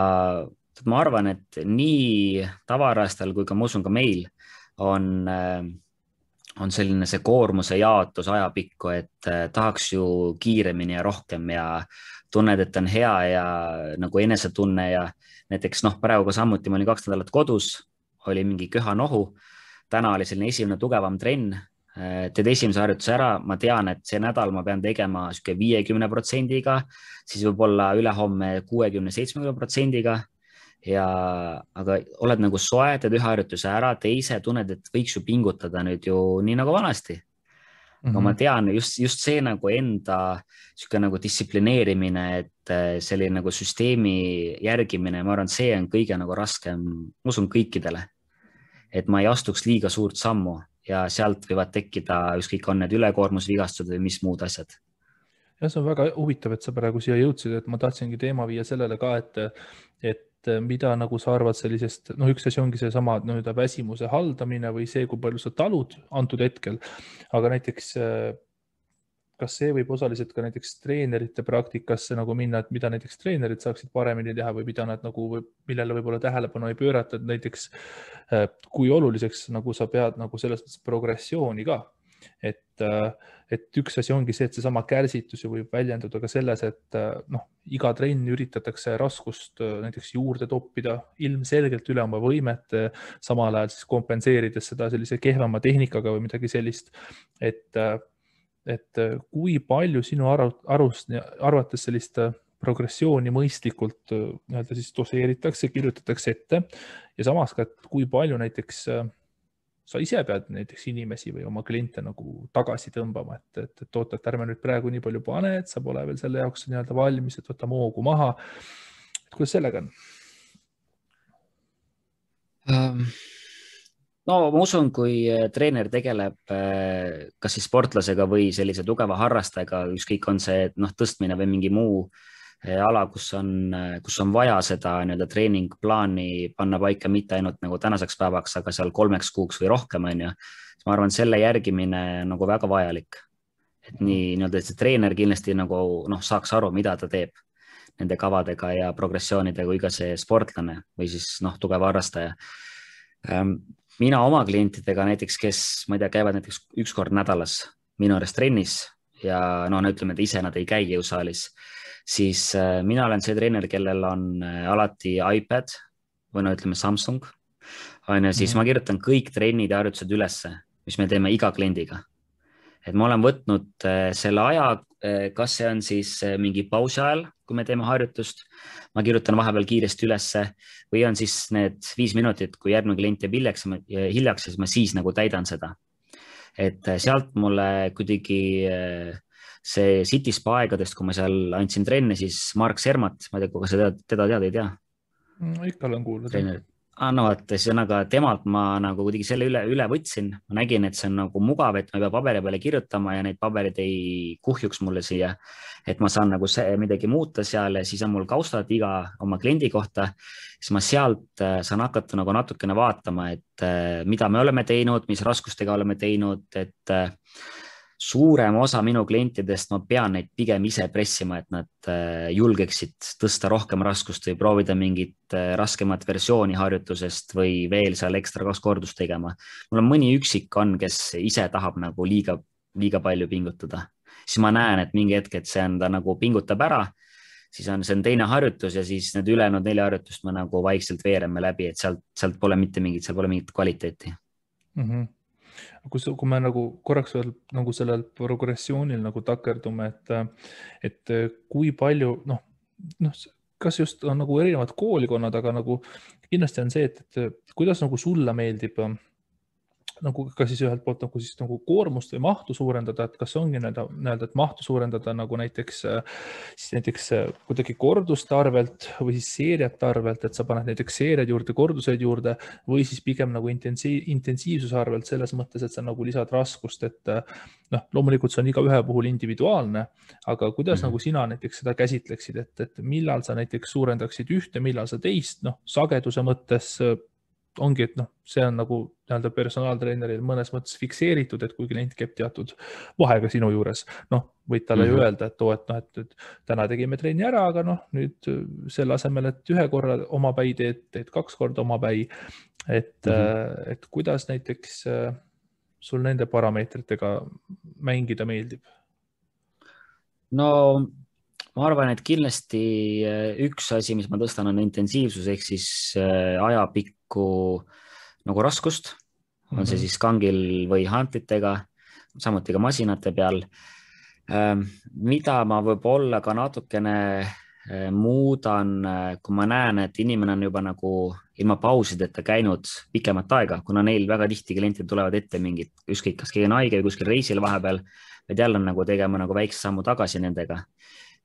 ma arvan, et nii tavaharrastajal kui ka ma usun ka meil on selline see koormuse jaotus ajapikku, et tahaks ju kiiremini ja rohkem ja tunned, et on hea ja nagu enesetunne ja näiteks praegu ka samuti ma olin 2 nädalat kodus, oli mingi köhanohu, täna oli selline esimene tugevam trenn, teed esimese harjutuse ära, ma tean, et see nädal ma pean tegema 50%-ga, siis võib-olla ülehomme 60-70%-ga aga oled nagu soe, teed ühe harjutuse ära, teise tunned, et võiks ju pingutada nüüd ju nii nagu vanasti. Aga ma tean just see nagu enda nagu distsiplineerimine, et selline nagu süsteemi järgimine, ma arvan, see on kõige nagu raskem, ma usun kõikidele, et ma ei astuks liiga suurt sammu ja sealt võivad tekkida ükskõik on need ülekoormusvigastused või mis muud asjad. Ja see on väga huvitav, et sa praegu siia jõudsid, et ma tahtsingi teema viia sellele ka, et mida nagu sa arvad sellisest, üks asi ongi see sama väsimuse haldamine või see, kui palju sa talud antud hetkel, aga näiteks kas see võib osaliselt ka näiteks treenerite praktikasse nagu minna, et mida näiteks treenerid saaksid paremini teha või mida nad nagu, millele võib-olla tähelepanu ei pöörata, et näiteks kui oluliseks nagu sa pead nagu selles mõttes progressiooni ka. Et üks asi ongi see, et seesama kärsitus võib väljenduda ka selles, et iga trenn üritatakse raskust näiteks juurde toppida ilmselgelt üle oma võimet, samal ajal siis kompenseerides seda sellise kehvema tehnikaga või midagi sellist, et kui palju sinu arvates sellist progressiooni mõistlikult siis doseeritakse, kirjutatakse ette ja samas ka, et kui palju näiteks sa ise pead näiteks inimesi või oma kliente nagu tagasi tõmbama, et oota, et ärme nüüd praegu nii palju pane, et sa pole veel selle jaoks nii-öelda valmis, et võta moogu maha. Kuidas sellega on? No ma usun, kui treener tegeleb kas siis sportlasega või sellise tugeva harrastajaga, ükskõik on see tõstmine või mingi muu ala, kus on vaja seda treeningplaani panna paika mitte ainult nagu tänaseks päevaks, aga seal 3 kuuks või rohkem on ju. Ma arvan, selle järgimine nagu väga vajalik. Et nii see treener kindlasti nagu saaks aru, mida ta teeb nende kavadega ja progressioonidega kui ka see sportlane või siis tugev harrastaja. Mina oma klientidega näiteks, kes ma ei tea, käivad näiteks 1 kord nädalas minu juures trennis ja ütleme, et ise nad ei käi jõusaalis, siis mina olen see treener, kellel on alati iPad või ütleme Samsung, siis ma kirjutan kõik trennid ja harjutused ülesse, mis me teeme iga kliendiga. Et ma olen võtnud selle aja, kas see on siis mingi pausi ajal, kui me teeme harjutust, ma kirjutan vahepeal kiiresti ülesse või on siis need 5 minutit, kui järgmine klient jääb hiljaks, siis ma siis nagu täidan seda. Et sealt mulle kuidagi see City Spa aegadest, kui ma seal andsin trenne, siis Mark Sermat, ma ei tea, kui sa teda tead, ei tea? Ikka olen kuulnud. Ühesõnaga temalt ma nagu kuidagi selle üle võtsin, ma nägin, et see on nagu mugav, et ma ei pea paberi peale kirjutama ja neid paberid ei kuhjuks mulle siia, et ma saan nagu midagi muuta seal ja siis on mul kaustad iga oma kliendi kohta, siis ma sealt saan hakata nagu natukene vaatama, et mida me oleme teinud, mis raskustega oleme teinud, et suurem osa minu klientidest ma pean neid pigem ise pressima, et nad julgeksid tõsta rohkem raskust või proovida mingit raskemat versiooni harjutusest või veel seal ekstra 2 kordust tegema. Mul on mõni üksik on, kes ise tahab nagu liiga palju pingutada. Siis ma näen, et mingi hetk, et see on ta nagu pingutab ära, siis see on teine harjutus ja siis need ülejäänud 4 harjutust ma nagu vaikselt veereme läbi, et sealt pole mitte mingit kvaliteeti. Kui me nagu korraks veel nagu sellel progressioonil nagu takerdume, et kui palju, kas just on nagu erinevad koolikonnad, aga nagu kindlasti on see, et kuidas nagu sulle meeldib nagu ka siis ühelt poolt nagu siis nagu koormust või mahtu suurendada, et kas ongi et mahtu suurendada nagu näiteks kuidagi korduste arvelt või siis seeriate arvelt, et sa paned näiteks seeriad juurde, korduseid juurde või siis pigem nagu intensiivsuse arvelt selles mõttes, et sa nagu lisad raskust, et loomulikult see on iga ühe puhul individuaalne, aga kuidas nagu sina näiteks seda käsitleksid, et millal sa näiteks suurendaksid ühte, millal sa teist, sageduse mõttes ongi, et noh, see on nagu nii-öelda personaaltreeneril mõnes mõttes fikseeritud, et kui klient käib teatud vahega sinu juures, noh, võid talle ju öelda, et et täna tegime trenni ära, aga noh, nüüd selle asemel, et ühe korra omapäi teed 2 korda omapäi, et kuidas näiteks sul nende parameetritega mängida meeldib? No ma arvan, et kindlasti üks asi, mis ma tõstan, on intensiivsus ehk siis ajapikku nagu raskust, on see siis kangil või hantlitega, samuti ka masinate peal. Mida ma võib-olla ka natukene muudan, kui ma näen, et inimene on juba nagu ilma pausideta käinud pikemat aega, kuna neil väga tihti klientid tulevad ette mingid, ükskõik kas keegi on haige või kuskil reisil vahepeal, et jälle on nagu tegema nagu väikse sammu tagasi nendega.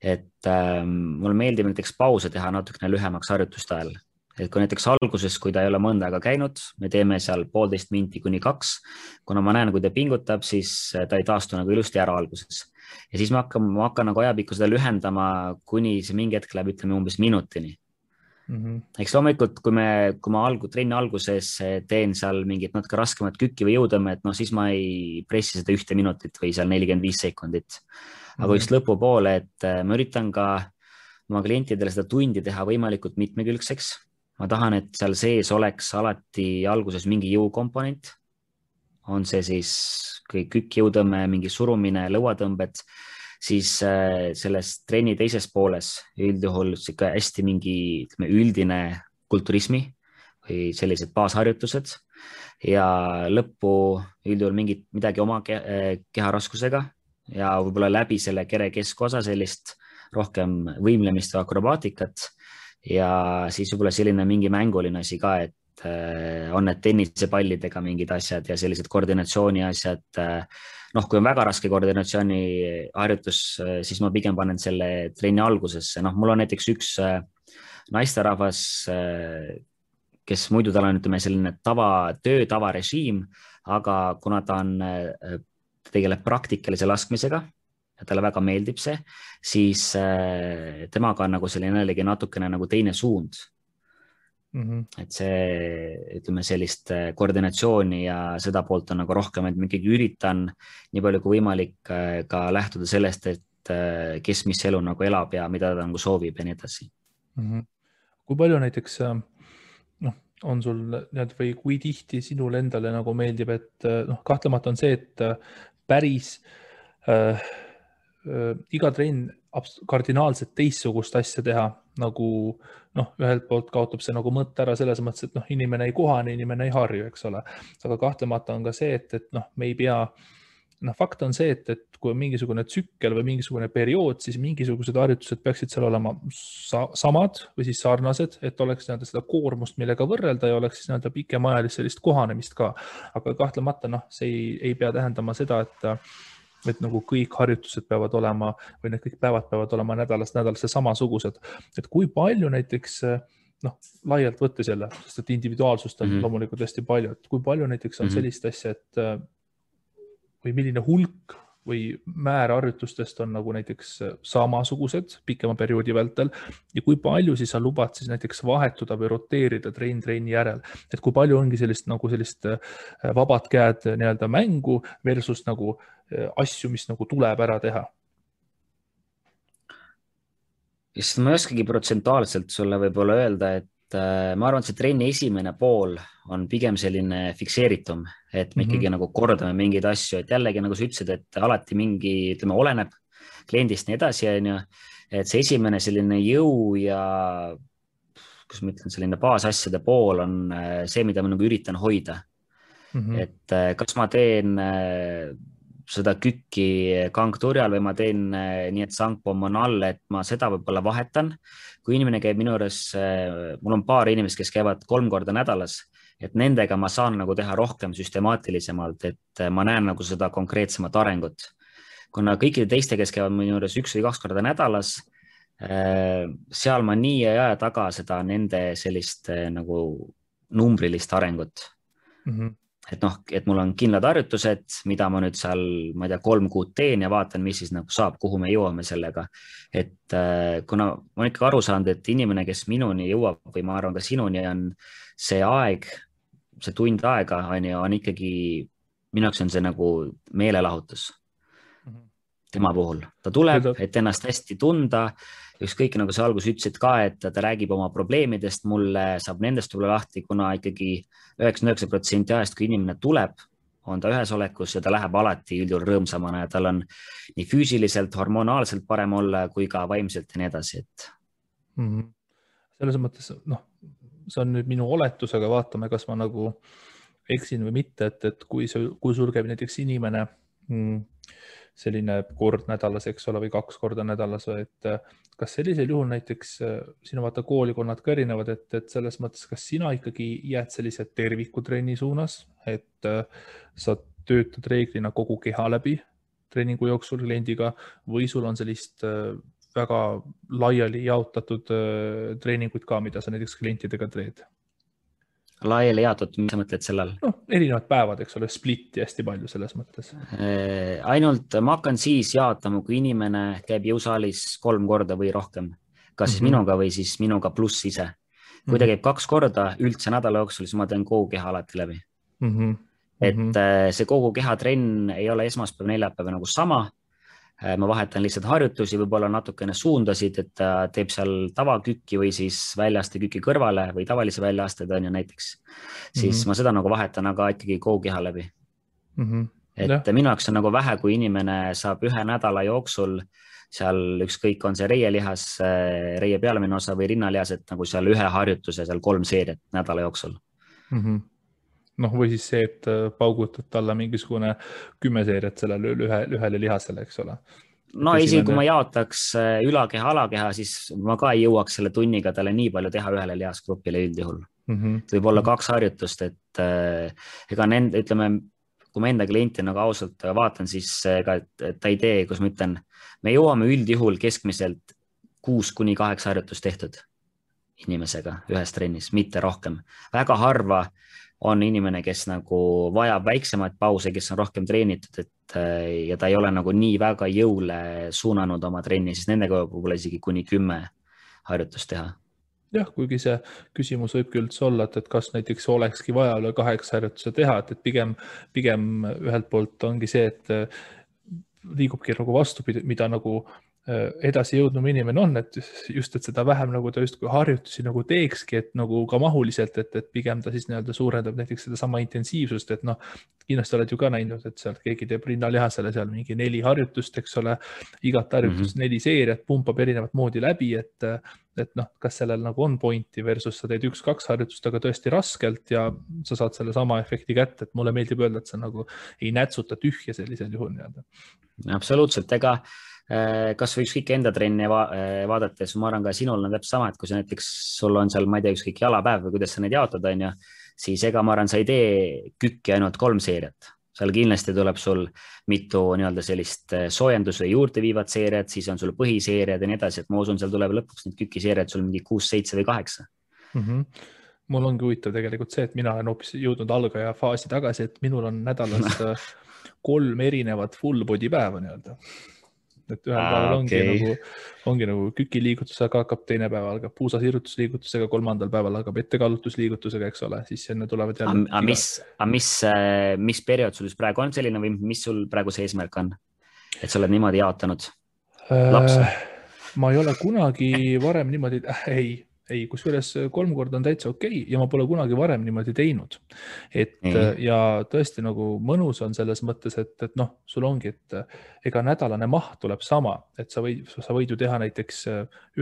Et mulle meeldib näiteks pause teha natukene lühemaks harjutuste ajal. Et kui näiteks alguses, kui ta ei ole mõnda aega käinud, me teeme seal 1,5 minti kuni 2, kuna ma näen, kui ta pingutab, siis ta ei taastu nagu ilusti ära alguses. Ja siis ma hakkan nagu ajapikku seda lühendama, kuni see mingi hetk läheb, ütleme umbes minutini. Eks loomulikult, kui ma trenni alguses teen seal mingit natuke raskemat kükki või jõutõmmet, no siis ma ei pressi seda 1 minutit või seal 45 sekundit. Aga just lõpupoole, et ma üritan ka oma klientidele seda tundi teha võimalikult mitmekülgseks. Ma tahan, et seal sees oleks alati alguses mingi jõukomponent. On see siis kükk, jõutõmme, mingi surumine, lõuatõmbed, siis selles trenni teises pooles üldjuhul hästi mingi üldine kulturismi või sellised baasharjutused ja lõppu üldjuhul midagi oma keharaskusega ja võib-olla läbi selle kere keskosa sellist rohkem võimlemist või akrobaatikat ja siis võib-olla selline mingi mänguline asi ka, et on need tennisepallidega mingid asjad ja sellised koordinatsiooni asjad. Noh, kui on väga raske koordinatsiooni harjutus, siis ma pigem panen selle trenni algusesse. Noh, mul on näiteks üks naisterahvas, kes muidu tal on, ütleme, selline tavarežiim, aga kuna ta tegeleb praktikalise laskmisega ja talle väga meeldib see, siis temaga on nagu selline jällegi natukene nagu teine suund. Et see, ütleme, sellist koordinatsiooni ja seda poolt on nagu rohkem, et ma ikkagi üritan nii palju kui võimalik ka lähtuda sellest, et kes mis elu nagu elab ja mida ta nagu soovib ja nii edasi. Kui palju näiteks on sul või kui tihti sinule endale nagu meeldib, et kahtlemata on see, et päris iga trenn kardinaalselt teistsugust asja teha, nagu ühelt poolt kaotab see nagu mõtte ära selles mõttes, et inimene ei kohane, inimene ei harju, eks ole. Aga kahtlemata on ka see, et me ei pea, fakt on see, et kui on mingisugune tsükkel või mingisugune periood, siis mingisugused harjutused peaksid seal olema samad või siis sarnased, et oleks seda koormust, millega võrrelda ja oleks siis pikemaajalist sellist kohanemist ka. Aga kahtlemata see ei pea tähendama seda, et nagu kõik harjutused peavad olema või need kõik päevad peavad olema nädalast nädalasse samasugused. Et kui palju näiteks, laialt võttes jälle, sest et individuaalsust on loomulikult hästi palju, et kui palju näiteks on sellist asja, et või milline hulk või määr harjutustest on nagu näiteks samasugused pikema perioodi vältel ja kui palju siis sa lubad siis näiteks vahetuda või roteerida trenni järel, et kui palju ongi sellist vabad käed nii-öelda mängu versus nagu asju, mis nagu tuleb ära teha? Sest ma ei oskagi protsentuaalselt sulle võib-olla öelda, et ma arvan, et see trenni esimene pool on pigem selline fikseeritum, et me ikkagi nagu kordame mingeid asju, et jällegi nagu sa ütlesid, et alati mingi, ütleme, oleneb kliendist nii edasi, et see esimene selline jõu ja kus ma ütlen, selline baasasjade pool on see, mida ma nagu üritan hoida. Et kas ma teen seda kükki kangturjal või ma teen nii, et sangpomm on all, et ma seda võib-olla vahetan. Kui inimene käib minu juures, mul on paar inimest, kes käivad 3 korda nädalas, et nendega ma saan nagu teha rohkem süstemaatilisemalt, et ma näen nagu seda konkreetsemat arengut. Kuna kõikide teiste, kes käivad minu juures 1 või 2 korda nädalas, seal ma nii ei aja taga seda nende sellist nagu numbrilist arengut. Et mul on kindlad harjutused, mida ma nüüd seal, ma ei tea, 3 kuud teen ja vaatan, mis siis nagu saab, kuhu me jõuame sellega. Et kuna ma olen ikka aru saanud, et inimene, kes minuni jõuab või ma arvan ka sinuni, on see aeg, see tund aega on ikkagi, minu jaoks on see nagu meelelahutus tema puhul. Ta tuleb, et ennast hästi tunda, ükskõik nagu sa alguses ütlesid ka, et ta räägib oma probleemidest, mulle saab nendest tulla lahti, kuna ikkagi 99% ajast, kui inimene tuleb, on ta ühes olekus ja ta läheb alati üldjuhul rõõmsamana ja tal on nii füüsiliselt, hormonaalselt parem olla kui ka vaimselt ja nii edasi, et. Selles mõttes, see on nüüd minu oletus, aga vaatame, kas ma nagu eksin või mitte, et kui sul käib näiteks inimene selline kord nädalas, eks ole, või 2 korda nädalas, et kas sellisel juhul näiteks sinu vaata koolikonnad ka erinevad, et selles mõttes, kas sina ikkagi jääd sellise tervikutrenni suunas, et sa töötad reeglina kogu keha läbi treeningu jooksul kliendiga või sul on sellist väga laiali jaotatud treeninguid ka, mida sa näiteks klientidega teed? Laiali jaotatud, mis sa mõtled sellel? Erinevad päevad, eks ole, splitti hästi palju selles mõttes. Ainult ma hakkan siis jaotama, kui inimene käib jõusaalis 3 korda või rohkem. Kas siis minuga või siis minuga pluss ise. Kui ta käib 2 korda üldse nädala jooksul, siis ma teen kogu keha alati läbi. Et see kogu keha trenn ei ole esmaspäev, neljapäev nagu sama. Ma vahetan lihtsalt harjutusi, võib-olla natukene suundasid, et ta teeb seal tavakükki või siis väljaaste kükki kõrvale või tavalise väljaaste on ju näiteks. Siis ma seda nagu vahetan, aga ikkagi kogu keha läbi. Et minu jaoks on nagu vähe, kui inimene saab 1 nädala jooksul seal ükskõik on see reielihas, reie pealemine osa või rinnalihas, et nagu seal 1 harjutuse, seal 3 seeriat nädala jooksul. Või siis see, et paugutad talle mingisugune 10 seeriat sellele ühele lihasele, eks ole. Isegi kui ma jaotaks ülakeha, alakeha, siis ma ka ei jõuaks selle tunniga talle nii palju teha ühele lihasgrupile üldjuhul. Võib olla 2 harjutust, et ega ütleme, kui ma enda klienti nagu ausalt vaatan, siis ta ei tee, kus ma ütlen, me jõuame üldjuhul keskmiselt 6-8 harjutust tehtud inimesega ühes trennis, mitte rohkem. Väga harva on inimene, kes nagu vajab väiksemaid pause, kes on rohkem treenitud, ja ta ei ole nagu nii väga jõule suunanud oma trenni, siis nendega võib-olla isegi kuni 10 harjutust teha. Jah, kuigi see küsimus võib küll olla, et kas näiteks olekski vaja üle 8 harjutuse teha, et pigem ühelt poolt ongi see, et liigubki nagu vastupidi, mida nagu edasi jõudnum inimene on, et just, et seda vähem nagu ta justkui harjutusi nagu teekski, et nagu ka mahuliselt, et pigem ta siis nii-öelda suurendab näiteks seda sama intensiivsust, et kindlasti oled ju ka näinud, et seal keegi teeb rinnalihasele seal mingi 4 harjutust, eks ole, igat harjutust 4 seeriat, pumpab erinevat moodi läbi, et kas sellel nagu on pointi versus sa teed 1-2 harjutust, aga tõesti raskelt ja sa saad selle sama efekti kätte, et mulle meeldib öelda, et sa nagu ei nätsuta tühja sellisel juhul nii-öelda. Absoluutselt, ega kas või ükskõik enda trenni vaadates, ma arvan ka sinul on täpselt sama, et kui sa näiteks sul on seal, ma ei tea, ükskõik jalapäev või kuidas sa neid jaotad, on ju, siis ega ma arvan, sa ei tee kükki ainult 3 seeriat. Seal kindlasti tuleb sul mitu nii-öelda sellist soojendus- või juurde viivat seeriat, siis on sul põhiseeriad ja nii edasi, et ma usun, seal tuleb lõpuks need kükkiseeriad sul mingi 6, 7 või 8. Mul ongi huvitav tegelikult see, et mina olen hoopis jõudnud algaja faasi tagasi, et minul on nädalas 3 erinevat full body päeva nii-öelda. Et ühel päeval ongi nagu kükiliigutusega hakkab, teine päev algab puusasirrutusliigutusega, 3. päeval hakkab ettekaallutusliigutusega, eks ole, siis enne tulevad jälle. Mis periood sul praegu on selline või mis sul praegu see eesmärk on? Et sa oled niimoodi jaotanud lapse? Ma ei ole kunagi varem niimoodi, ei, kusjuures 3 korda on täitsa okei ja ma pole kunagi varem niimoodi teinud. Ja tõesti nagu mõnus on selles mõttes, et sul ongi, et ega nädalane maht tuleb sama, et sa võid ju teha näiteks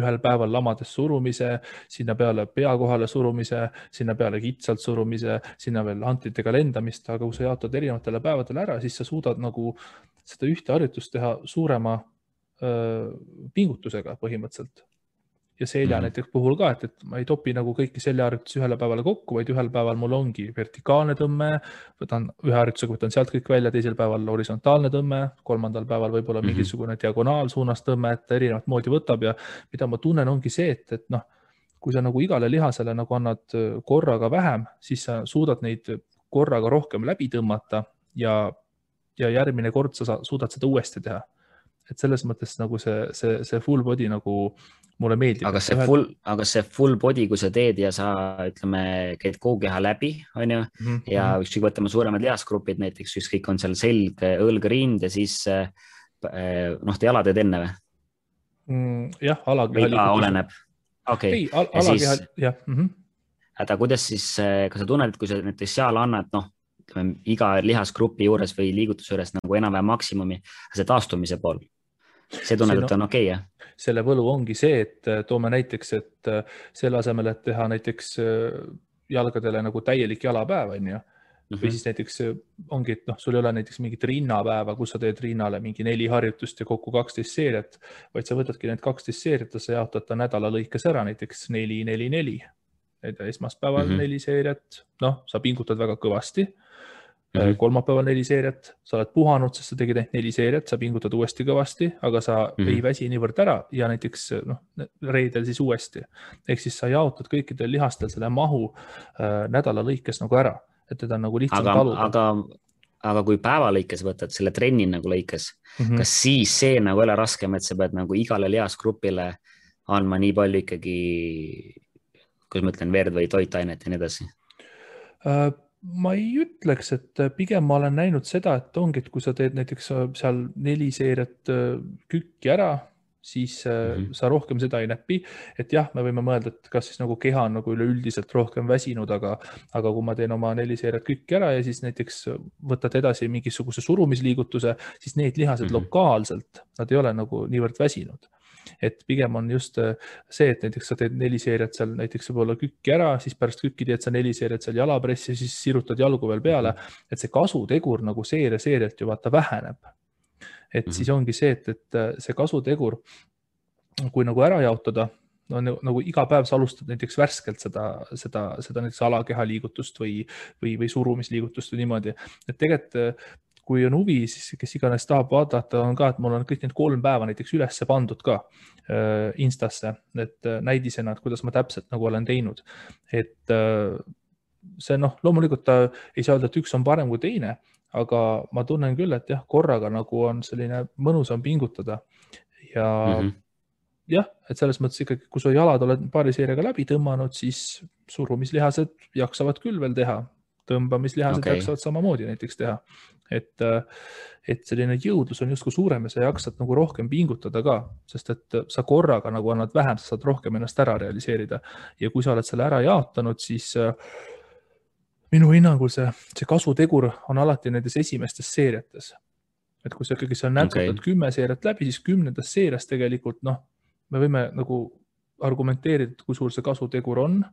ühel päeval lamades surumise, sinna peale pea kohale surumise, sinna peale kitsalt surumise, sinna veel hantritega lendamist, aga kui sa jaotad erinevatele päevadele ära, siis sa suudad nagu seda ühte harjutust teha suurema pingutusega põhimõtteliselt. Ja selja näiteks puhul ka, et ma ei topi nagu kõiki seljaharjutusi ühele päevale kokku, vaid ühel päeval mul ongi vertikaalne tõmme, võtan ühe harjutusega, võtan sealt kõik välja, teisel päeval horisontaalne tõmme, 3. päeval võib-olla mingisugune diagonaalsuunas tõmme, et erinevat moodi võtab ja mida ma tunnen ongi see, et kui sa nagu igale lihasele nagu annad korraga vähem, siis sa suudad neid korraga rohkem läbi tõmmata ja järgmine kord sa suudad seda uuesti teha. et selles mõttes nagu see full body nagu mulle meeldib. Aga see full body, kui sa teed ja sa, ütleme, käid kogu keha läbi, on ju, ja ükskõik võtame suuremad lihasgrupid, näiteks ükskõik on seal selg, õlg, rind ja siis te jala teed enne või? Jah, alakeha liigutus. Oleneb. Okei. Ei, alakeha, jah. Aga kuidas siis, kas sa tunned, et kui sa näiteks seal annad, iga lihasgrupi juures või liigutuse juures nagu enam-vähem maksimumi, see taastumise pool, see tunned, et on okei, jah? Selle võlu ongi see, et toome näiteks, et selle asemel, et teha näiteks jalgadele nagu täielik jalapäev, on ju, või siis näiteks ongi, et sul ei ole näiteks mingit rinnapäeva, kus sa teed rinnale mingi 4 harjutust ja kokku 12 seeriat, vaid sa võtadki need 12 seeriat ja sa jaotad ta nädala lõikes ära, näiteks 4-4-4. Esmaspäeval 4 seeriat, sa pingutad väga kõvasti. Kolmapäeval 4 seeriat, sa oled puhanud, sest sa tegid 4 seeriat, sa pingutad uuesti kõvasti, aga sa ei väsi niivõrd ära ja näiteks reedel siis uuesti. Ehk siis sa jaotad kõikidel lihastel selle mahu nädala lõikes nagu ära, et teda nagu lihtsalt taluda. Aga kui päeva lõikes võtad selle trenni nagu lõikes, kas siis see nagu ei ole raskem, et sa pead nagu igale lihasgrupile andma nii palju ikkagi, kuidas ma ütlen, verd või toitainet ja nii edasi? Ma ei ütleks, et pigem ma olen näinud seda, et ongi, et kui sa teed näiteks seal 4 seeriat kükki ära, siis sa rohkem seda ei näpi. Et jah, me võime mõelda, et kas siis nagu keha on nagu üleüldiselt rohkem väsinud, aga kui ma teen oma 4 seeriat kükki ära ja siis näiteks võtad edasi mingisuguse surumisliigutuse, siis need lihased lokaalselt, nad ei ole nagu niivõrd väsinud. Et pigem on just see, et näiteks sa teed 4 seeriat seal näiteks võib-olla kükki ära, siis pärast kükki teed sa 4 seeriat seal jalapressi ja siis sirutad jalgu veel peale, et see kasutegur nagu seerialt ju vaata väheneb. Et siis ongi see, et see kasutegur, kui nagu ära jaotada, nagu iga päev sa alustad näiteks värskelt seda näiteks alakeha liigutust või surumisliigutust või niimoodi, et tegelikult kui on huvi, siis kes iganes tahab vaadata, on ka, et mul on kõik need 3 päeva näiteks ülesse pandud ka Instasse, et näidisena, et kuidas ma täpselt nagu olen teinud. Et see loomulikult ta ei saa öelda, et üks on parem kui teine, aga ma tunnen küll, et jah, korraga nagu on selline mõnusam pingutada ja jah, et selles mõttes ikkagi, kui su jalad oled paari seeriaga läbi tõmmanud, siis surumislihased jaksavad küll veel teha. Tõmbamislihased jaksavad samamoodi näiteks teha. Et selline jõudlus on justkui suurem ja sa jaksad nagu rohkem pingutada ka, sest et sa korraga nagu annad vähem, sa saad rohkem ennast ära realiseerida. Ja kui sa oled selle ära jaotanud, siis minu hinnangul see kasutegur on alati nendes esimestes seeriates. Et kui sa ikkagi seal nätsutad 10 seeriat läbi, siis 10. seerias tegelikult, me võime nagu argumenteerida, kui suur see kasutegur on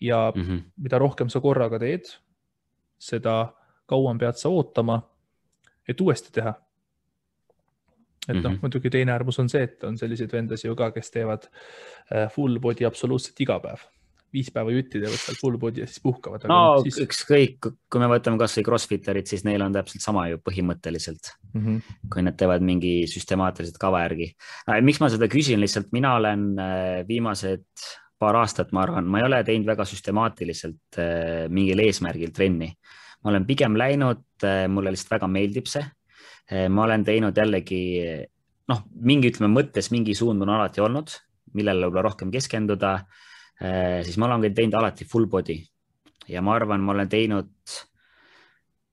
ja mida rohkem sa korraga teed, seda kauem pead sa ootama, et uuesti teha. Et muidugi teine äärmus on see, et on selliseid vendasi ju ka, kes teevad full body absoluutselt iga päev. 5 päeva jutti teevad seal full body ja siis puhkavad. Siis... ükskõik, kui me võtame kas või crossfitterid, siis neil on täpselt sama ju põhimõtteliselt, kui nad teevad mingi süstemaatiliselt kava järgi. Miks ma seda küsin, lihtsalt mina olen viimased paar aastat, ma arvan, ma ei ole teinud väga süstemaatiliselt mingil eesmärgil trenni. Ma olen pigem läinud, mulle lihtsalt väga meeldib see. Ma olen teinud jällegi, mingi mõttes mingi suund on alati olnud, millele võib-olla rohkem keskenduda, siis ma olen teinud alati full body ja ma arvan, ma olen teinud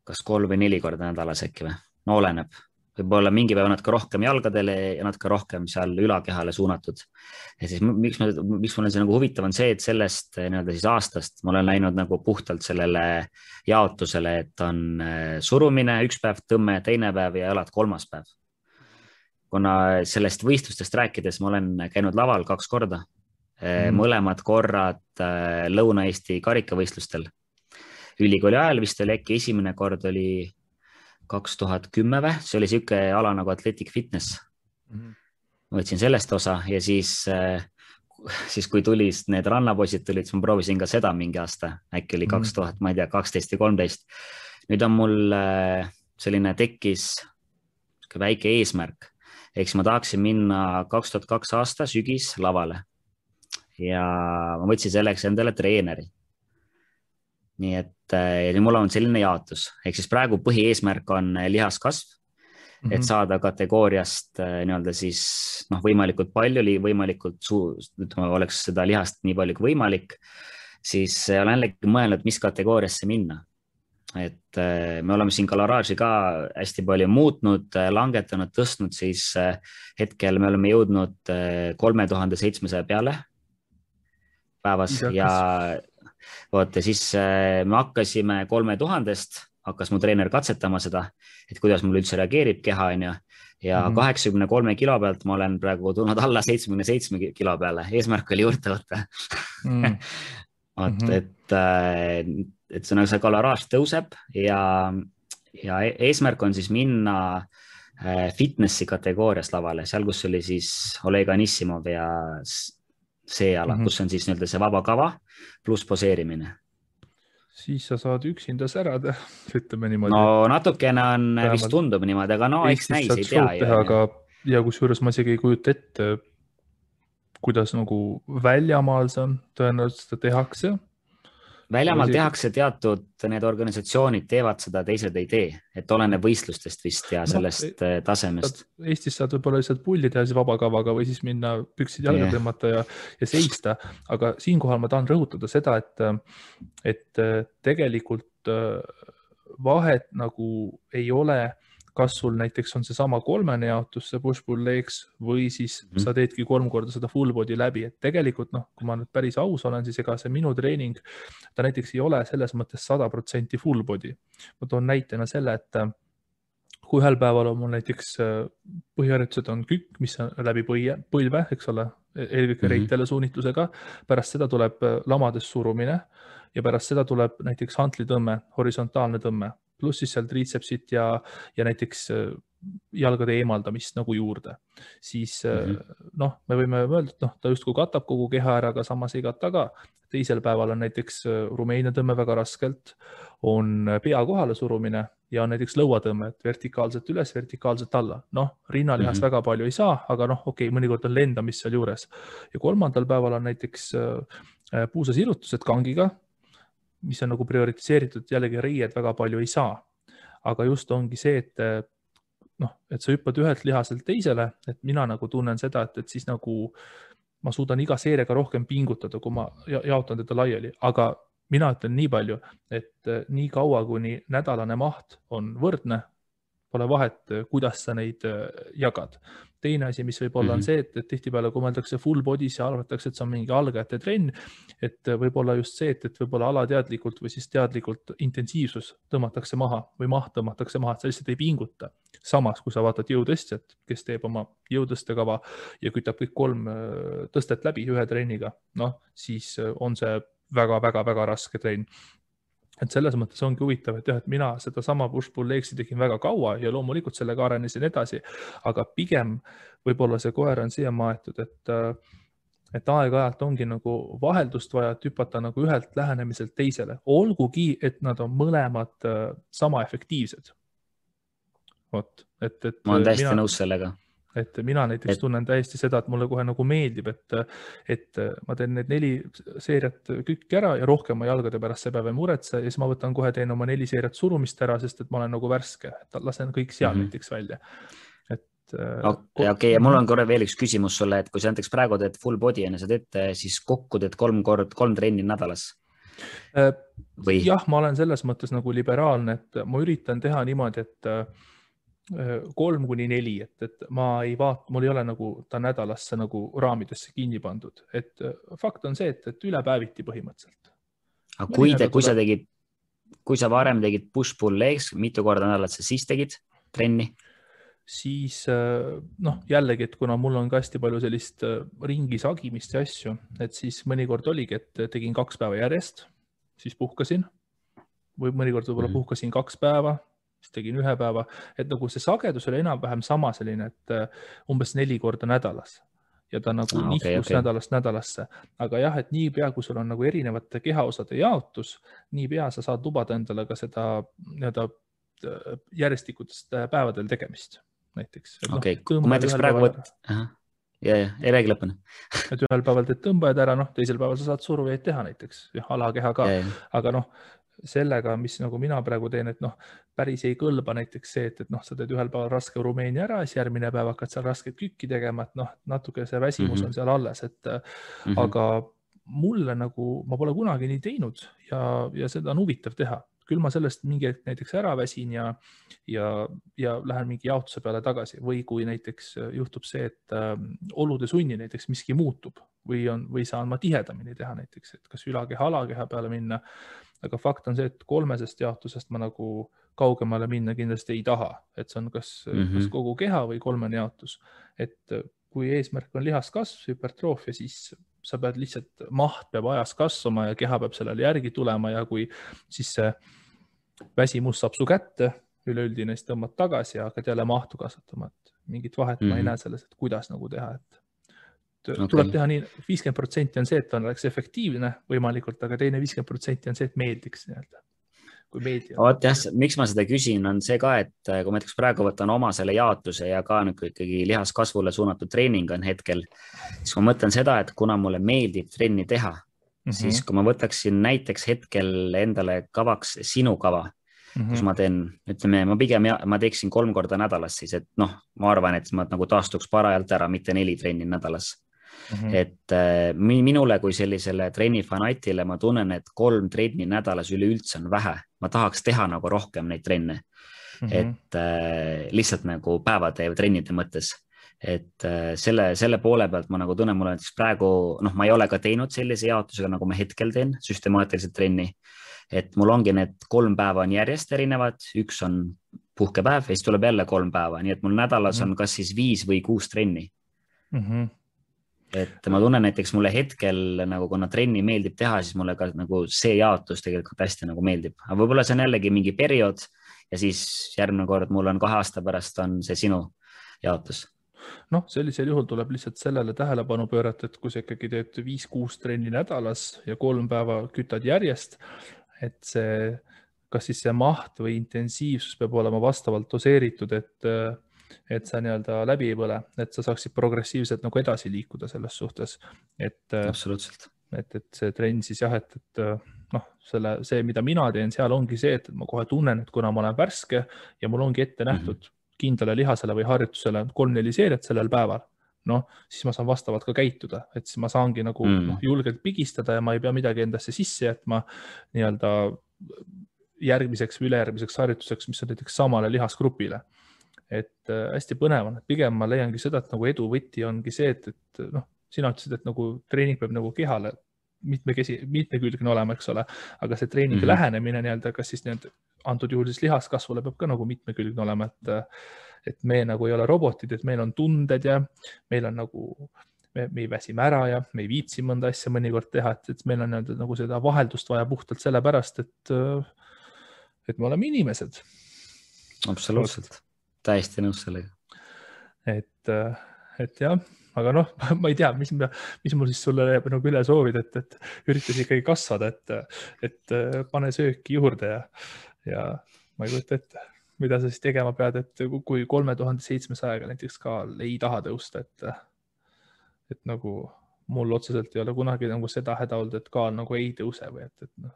kas 3 või 4 korda nädalas äkki või, oleneb. Võib-olla mingi päev natuke rohkem jalgadele ja natuke rohkem seal ülakehale suunatud. Ja siis miks mul on see nagu huvitav on see, et sellest siis aastast ma olen läinud nagu puhtalt sellele jaotusele, et on surumine 1 päev, tõmme 2 päev ja jalad 3. päev. Kuna sellest võistlustest rääkides ma olen käinud laval 2 korda, mõlemad korrad Lõuna-Eesti karikavõistlustel. Ülikooli ajal vist oli äkki esimene kord oli 2010 või, see oli siuke ala nagu Athletic Fitness. Ma võtsin sellest osa ja siis kui tulid need rannapoisid tulid, siis ma proovisin ka seda mingi aasta, äkki oli 2000, ma ei tea, 12 või 13. Nüüd on mul selline tekkis väike eesmärk, eks ma tahaksin minna 2002 aasta sügis lavale ja ma võtsin selleks endale treeneri. Nii et mul on selline jaotus, ehk siis praegu põhieesmärk on lihaskasv et saada kategooriast nii-öelda siis võimalikult palju, ütleme, oleks seda lihast nii palju kui võimalik, siis olen jällegi mõelnud, mis kategooriasse minna. Et me oleme siin kaloraaži ka hästi palju muutnud, langetanud, tõstnud, siis hetkel me oleme jõudnud 3700 peale päevas ja vaata, siis me hakkasime 3000-st, hakkas mu treener katsetama seda, et kuidas mul üldse reageerib keha, on ju. Ja 83 kilo pealt ma olen praegu tulnud alla 77 kilo peale, eesmärk oli juurde võtta. Et see kaloraaž tõuseb ja eesmärk on siis minna fitnessi kategoorias lavale, seal, kus oli siis Oleg Anissimov ja see ala, kus on siis nii-öelda see vaba kava pluss poseerimine. Siis sa saad üksinda särada, ütleme niimoodi. No natukene on, vist tundub niimoodi, aga no eks näis, ei tea. Ja kusjuures ma isegi ei kujuta ette, kuidas nagu väljamaal see on, tõenäoliselt seda tehakse. Väljamaal tehakse teatud, need organisatsioonid teevad seda, teised ei tee, et oleneb võistlustest vist ja sellest tasemest. Eestis saad võib-olla lihtsalt pulli teha siis vabakavaga või siis minna püksid jalga tõmmata ja seista, aga siinkohal ma tahan rõhutada seda, et tegelikult vahet nagu ei ole, kas sul näiteks on see sama kolmene jaotus, see push-pull legs või siis sa teedki 3 korda seda full body läbi, et tegelikult kui ma nüüd päris aus olen, siis ega see minu treening, ta näiteks ei ole selles mõttes 100% full body. Ma toon näitena selle, et kui ühel päeval on mul näiteks põhiharjutused on kükk, mis on läbi põlve, eks ole, eelkõige reitele suunitlusega, pärast seda tuleb lamades surumine ja pärast seda tuleb näiteks hantlitõmme, horisontaalne tõmme, pluss siis seal triitsepsit ja näiteks jalgade eemaldamist nagu juurde. Siis me võime öelda, et ta justkui katab kogu keha ära, aga samas ei kata ka. Teisel päeval on näiteks Rumeenia tõmme väga raskelt, on pea kohale surumine ja on näiteks lõuatõmme, et vertikaalselt üles, vertikaalselt alla. Rinnalihast väga palju ei saa, aga mõnikord on lendamist seal juures. Ja 3. päeval on näiteks puusasirutused kangiga, mis on nagu prioritiseeritud, jällegi riied väga palju ei saa. Aga just ongi see, et sa hüppad ühelt lihaselt teisele, et mina nagu tunnen seda, et siis nagu ma suudan iga seeriaga rohkem pingutada, kui ma jaotan teda laiali. Aga mina ütlen nii palju, et nii kaua, kuni nädalane maht on võrdne, pole vahet, kuidas sa neid jagad. Teine asi, mis võib olla on see, et tihtipeale, kui mõeldakse full body's ja arvatakse, et see on mingi algajate trenn, et võib olla just see, et võib olla alateadlikult või siis teadlikult intensiivsus tõmmatakse maha või maht tõmmatakse maha, et sa lihtsalt ei pinguta. Samas, kui sa vaatad jõutõstjat, kes teeb oma jõutõstekava ja kütab kõik 3 tõstet läbi ühe trenniga, siis on see väga-väga-väga raske trenn. Et selles mõttes ongi huvitav, et mina seda sama push-pull legsi tegin väga kaua ja loomulikult sellega arenesin edasi, aga pigem võib-olla see koer on siia maetud, et aeg-ajalt ongi nagu vaheldust vaja, et hüpata nagu ühelt lähenemiselt teisele. Olgugi, et nad on mõlemad sama efektiivsed. Ma olen täiesti nõus sellega. Et mina näiteks tunnen täiesti seda, et mulle kohe nagu meeldib, et ma teen need 4 seeriat kükki ära ja rohkem ma jalgade pärast see päev ei muretse ja siis ma võtan kohe teen oma 4 seeriat surumist ära, sest et ma olen nagu värske, et lasen kõik seal näiteks välja. Okei, ja mul on korra veel üks küsimus sulle, et kui sa näiteks praegu teed full body ja sa teed siis kokku teed 3 trenni nädalas? Jah, ma olen selles mõttes nagu liberaalne, et ma üritan teha niimoodi, et 3-4, et ma ei vaata, mul ei ole nagu ta nädalasse nagu raamidesse kinni pandud, et fakt on see, et ülepäeviti põhimõtteliselt. Aga kui sa varem tegid push-pull legs, mitu korda nädalat sa siis tegid trenni? Siis jällegi, et kuna mul on ka hästi palju sellist ringi sagimist ja asju, et siis mõnikord oligi, et tegin 2 päeva järjest, siis puhkasin või mõnikord võib-olla puhkasin 2 päeva, siis tegin 1 päeva, et nagu see sagedus oli enam-vähem sama selline, et umbes 4 korda nädalas ja ta nagu nihkus nädalast nädalasse. Aga jah, et nii pea, kui sul on nagu erinevate kehaosade jaotus, nii pea sa saad lubada endale ka seda järjestikutest päevadel tegemist näiteks. Kui ma näiteks praegu ei räägi lõpuni. Et ühel päeval teed tõmbajad ära, teisel päeval sa saad surujaid teha näiteks, alakeha ka, aga sellega, mis nagu mina praegu teen, et noh, päris ei kõlba näiteks see, et noh, sa teed ühel päeval raske Rumeenia ära, siis järgmine päev hakkad seal rasket kükki tegema, et noh, natuke see väsimus on seal alles, et aga mulle nagu, ma pole kunagi nii teinud ja seda on huvitav teha. Küll ma sellest mingi hetk näiteks ära väsin ja lähen mingi jaotuse peale tagasi või kui näiteks juhtub see, et olude sunni näiteks miski muutub või saan ma tihedamini teha näiteks, et kas ülakeha, alakeha peale minna. Aga fakt on see, et 3 jaotusest ma nagu kaugemale minna kindlasti ei taha, et see on kas kogu keha või 3 jaotus. Et kui eesmärk on lihaskasv, hüpertroofia, siis sa pead lihtsalt, maht peab ajas kasvama ja keha peab sellele järgi tulema ja kui siis see väsimus saab su kätte, üleüldine, siis tõmbad tagasi ja hakkad jälle mahtu kasvatama, et mingit vahet ma ei näe selles, et kuidas nagu teha, et tuleb teha nii, 50% on see, et on oleks efektiivne võimalikult, aga teine 50% on see, et meeldiks nii-öelda. Kui meeldi. Oot jah, miks ma seda küsin, on see ka, et kui ma näiteks praegu võtan oma selle jaotuse ja ka nagu ikkagi lihaskasvule suunatud treening on hetkel, siis ma mõtlen seda, et kuna mulle meeldib trenni teha, siis kui ma võtaksin näiteks hetkel endale kavaks sinu kava, kus ma teen, ütleme, ma teeksin 3 korda nädalas siis, et noh, ma arvan, et ma nagu taastuks parajalt ära, mitte 4 trenni nädalas. Et minule kui sellisele trennifanatile ma tunnen, et 3 trenni nädalas üleüldse on vähe. Ma tahaks teha nagu rohkem neid trenne, et lihtsalt nagu päevade ja trennide mõttes. Et selle poole pealt ma nagu tunnen, mulle näiteks praegu, noh, ma ei ole ka teinud sellise jaotusega, nagu ma hetkel teen, süstemaatiliselt trenni. Et mul ongi need 3 päeva on järjest erinevad, 1 on puhkepäev ja siis tuleb jälle 3 päeva, nii et mul nädalas on kas siis 5 või 6 trenni. Et ma tunnen näiteks mulle hetkel nagu kuna trenni meeldib teha, siis mulle ka nagu see jaotus tegelikult hästi nagu meeldib. Aga võib-olla see on jällegi mingi periood ja siis järgmine kord mul on 2 aasta pärast on see sinu jaotus. Noh, sellisel juhul tuleb lihtsalt sellele tähelepanu pöörata, et kui sa ikkagi teed 5-6 trenni nädalas ja 3 päeva kütad järjest, et see, kas siis see maht või intensiivsus peab olema vastavalt doseeritud, et sa nii-öelda läbi ei põle, et sa saaksid progressiivselt nagu edasi liikuda selles suhtes. Absoluutselt. Et see trenn siis jah, et noh, see, mida mina teen, seal ongi see, et ma kohe tunnen, et kuna ma olen värske ja mul ongi ette nähtud kindlale lihasele või harjutusele 3-4 seeriat sellel päeval, noh, siis ma saan vastavalt ka käituda, et siis ma saangi nagu julgelt pigistada ja ma ei pea midagi endasse sisse jätma nii-öelda järgmiseks või ülejärgmiseks harjutuseks, mis on näiteks samale lihasgrupile. Et hästi põnev on, et pigem ma leiangi seda, et nagu edu võti ongi see, et noh, sina ütlesid, et nagu treening peab nagu kehale mitmekülgne olema, eks ole, aga see treeningi lähenemine nii-öelda, kas siis nii-öelda antud juhul siis lihaskasvule peab ka nagu mitmekülgne olema, et me nagu ei ole robotid, et meil on tunded ja meil on nagu, me ei väsime ära ja me ei viitsi mõnda asja mõnikord teha, et meil on nagu seda vaheldust vaja puhtalt sellepärast, et me oleme inimesed. Absoluutselt. Täiesti nõus sellega. Et jah, aga noh, ma ei tea, mis mul siis sulle nagu üle soovid, et üritas ikkagi kasvada, et pane sööki juurde ja ma ei kujuta ette, mida sa siis tegema pead, et kui 3700 näiteks ka ei taha tõusta, et nagu mul otseselt ei ole kunagi nagu seda häda olnud, et kaal nagu ei tõuse või et noh,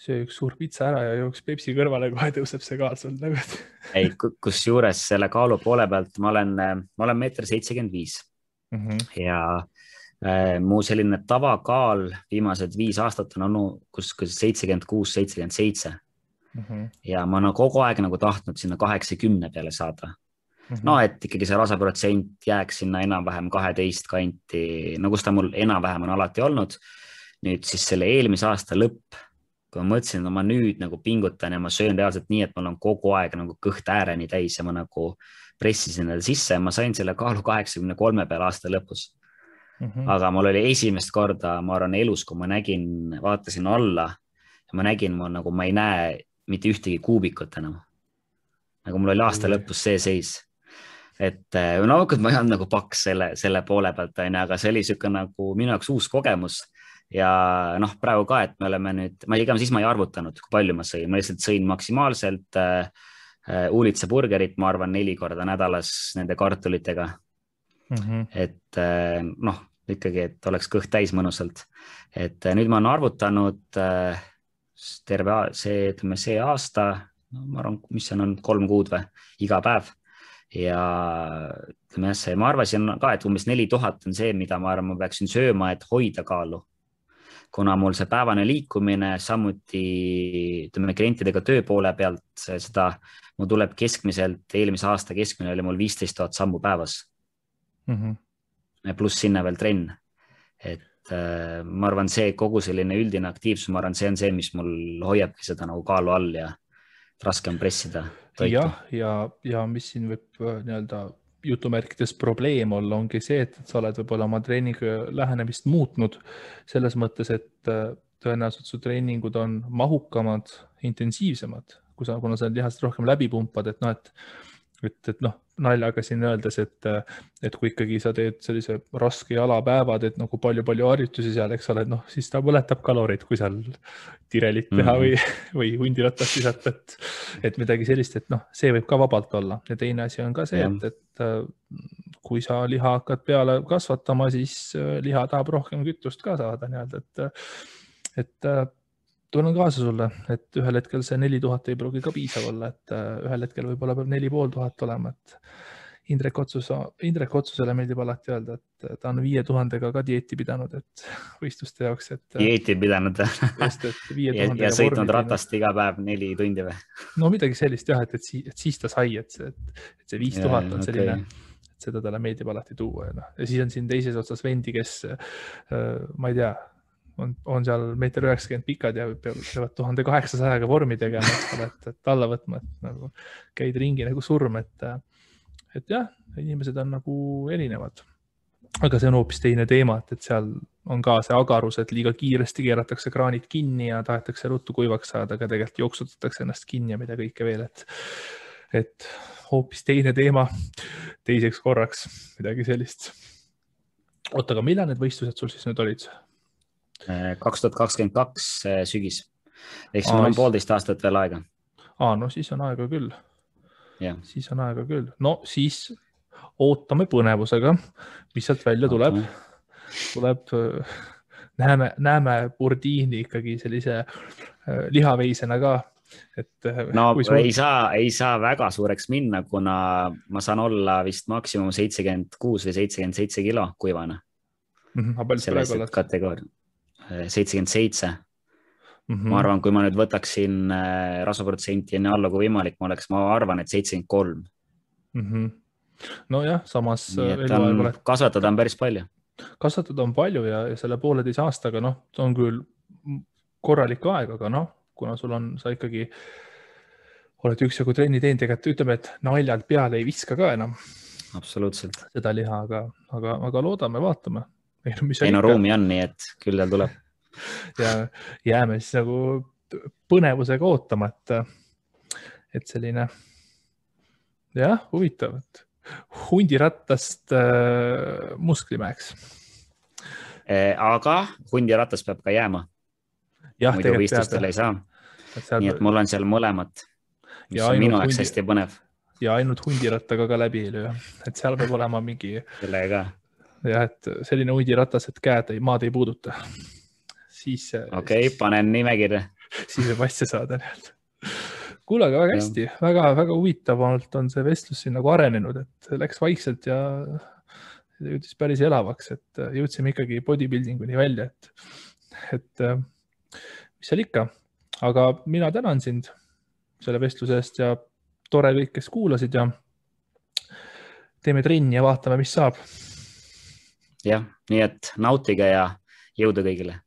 söö üks suur pitsa ära ja jooks Pepsi kõrvale, kohe tõuseb see kaal sul nagu. Ei, kus juures selle kaalu poole pealt ma olen 1,75 ja mu selline tavakaal viimased 5 aastat on olnud kus 76-77 ja ma olen kogu aeg nagu tahtnud sinna 80 peale saada. No, et ikkagi see rasaprotsent jääks sinna enam-vähem 12 kanti, no kus ta mul enam-vähem on alati olnud. Nüüd siis selle eelmise aasta lõpp, kui ma mõtlesin, et ma nüüd nagu pingutan ja ma söön reaalselt nii, et mul on kogu aeg nagu kõht ääreni täis ja ma nagu pressisin selle sisse ja ma sain selle kaalu 83 peale aasta lõpus. Aga mul oli esimest korda, ma arvan elus, kui ma vaatasin alla ja ma nägin, nagu ma ei näe mitte ühtegi kuubikut enam. Nagu mul oli aasta lõpus see seis. Et no, ma ei olnud nagu paks selle poole pealt, aga see oli siuke nagu minu jaoks uus kogemus. Ja noh, praegu ka, et me oleme nüüd, siis ma ei arvutanud, kui palju ma sõin. Ma lihtsalt sõin maksimaalselt uulitsa burgerit, ma arvan 4 korda nädalas nende kartulitega. Et noh, ikkagi, et oleks kõht täis mõnusalt. Et nüüd ma olen arvutanud see aasta, no, ma arvan, mis see on 3 kuud või, iga päev. Ja ütleme jah, ma arvasin ka, et umbes 4000 on see, mida ma arvan, ma peaksin sööma, et hoida kaalu. Kuna mul see päevane liikumine, samuti ütleme klientidega töö poole pealt, seda mul tuleb keskmiselt, eelmise aasta keskmine oli mul 15 000 sammu päevas. Pluss sinna veel trenn. Et ma arvan, see kogu selline üldine aktiivsus, ma arvan, see on see, mis mul hoiabki seda nagu kaalu all ja raske on pressida toitu. Ja mis siin võib nii-öelda jutumärkides probleem olla, ongi see, et sa oled võib-olla oma treeningu lähenemist muutnud selles mõttes, et tõenäoliselt su treeningud on mahukamad, intensiivsemad, kuna sa lihast rohkem läbi pumpad, et naljaga siin öeldes, et kui ikkagi sa teed sellise raske jalapäevad, et nagu palju harjutusi seal, eks ole, siis ta põletab kalorid, kui seal tirelit teha või hundiratast visata, et midagi sellist, et see võib ka vabalt olla. Ja teine asi on ka see, et kui sa liha hakkad peale kasvatama, siis liha tahab rohkem kütust ka saada nii-öelda, et tunnen kaasa sulle, et ühel hetkel see 4000 ei pruugi ka piisav olla, et ühel hetkel võib-olla peab 4500 olema, et Indrek Otsusele meeldib alati öelda, et ta on 5000-ga ka dieeti pidanud, et võistluste jaoks, et dieeti pidanud ja sõitnud ratast iga päev 4 tundi või? No midagi sellist jah, et siis ta sai, et see 5000 on selline, et seda talle meeldib alati tuua ja siis on siin teises otsas vendi, kes ma ei tea, on seal 1,90 m pikad ja peavad 1800-ga vormi tegema, et alla võtma, et nagu käid ringi nagu surm, et jah, inimesed on nagu erinevad. Aga see on hoopis teine teema, et seal on ka see agarus, et liiga kiiresti keeratakse kraanid kinni ja tahetakse ruttu kuivaks saada, aga tegelikult jooksutatakse ennast kinni ja mida kõike veel, et hoopis teine teema teiseks korraks, midagi sellist. Oota, aga millal need võistlused sul siis nüüd olid? 2022 sügis. Ehk mul on 1,5 aastat veel aega. No siis on aega küll. Ja. Siis on aega küll. No siis ootame põnevusega, mis sealt välja tuleb. Näeme Burdiini ikkagi sellise lihaveisena ka. Ei saa väga suureks minna, kuna ma saan olla vist maksimum 76 või 77 kilo kuivana. Selles kategooria. 77. Ma arvan, kui ma nüüd võtaksin rasvaprotsenti enne alla kui võimalik, ma arvan, et 73. No jah, samas kasvatada on päris palju. Kasvatada on palju ja selle 1,5 aastaga, on küll korralik aeg, aga kuna sa ikkagi oled üksjagu trenni teinud, ütleme, et naljalt peale ei viska ka enam. Absoluutselt. Seda liha, aga loodame, vaatame. Ruumi on, nii et küll tal tuleb. Ja jääme siis nagu põnevusega ootama, et selline huvitav, et hundirattast musklimäeks. Aga hundirattas peab ka jääma. Muidu võistlustel ei saa. Nii et mul on seal mõlemat, mis on minu jaoks hästi põnev. Ja ainult hundirattaga ka läbi ei löö, et seal peab olema mingi sellega. Ja et selline hundiratas, et maad ei puuduta. Okei, panen nimekirja. Siis võib asja saada. Kuule, aga väga hästi, väga huvitavalt on see vestlus siin nagu arenenud, et läks vaikselt ja jõudis päris elavaks, et jõudsime ikkagi bodybuildinguni välja, et mis seal ikka. Aga mina tänan sind selle vestluse eest ja tore kõik, kes kuulasid ja teeme trenni ja vaatame, mis saab. Jah, nii et nautige ja jõudu kõigile.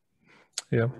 Jah.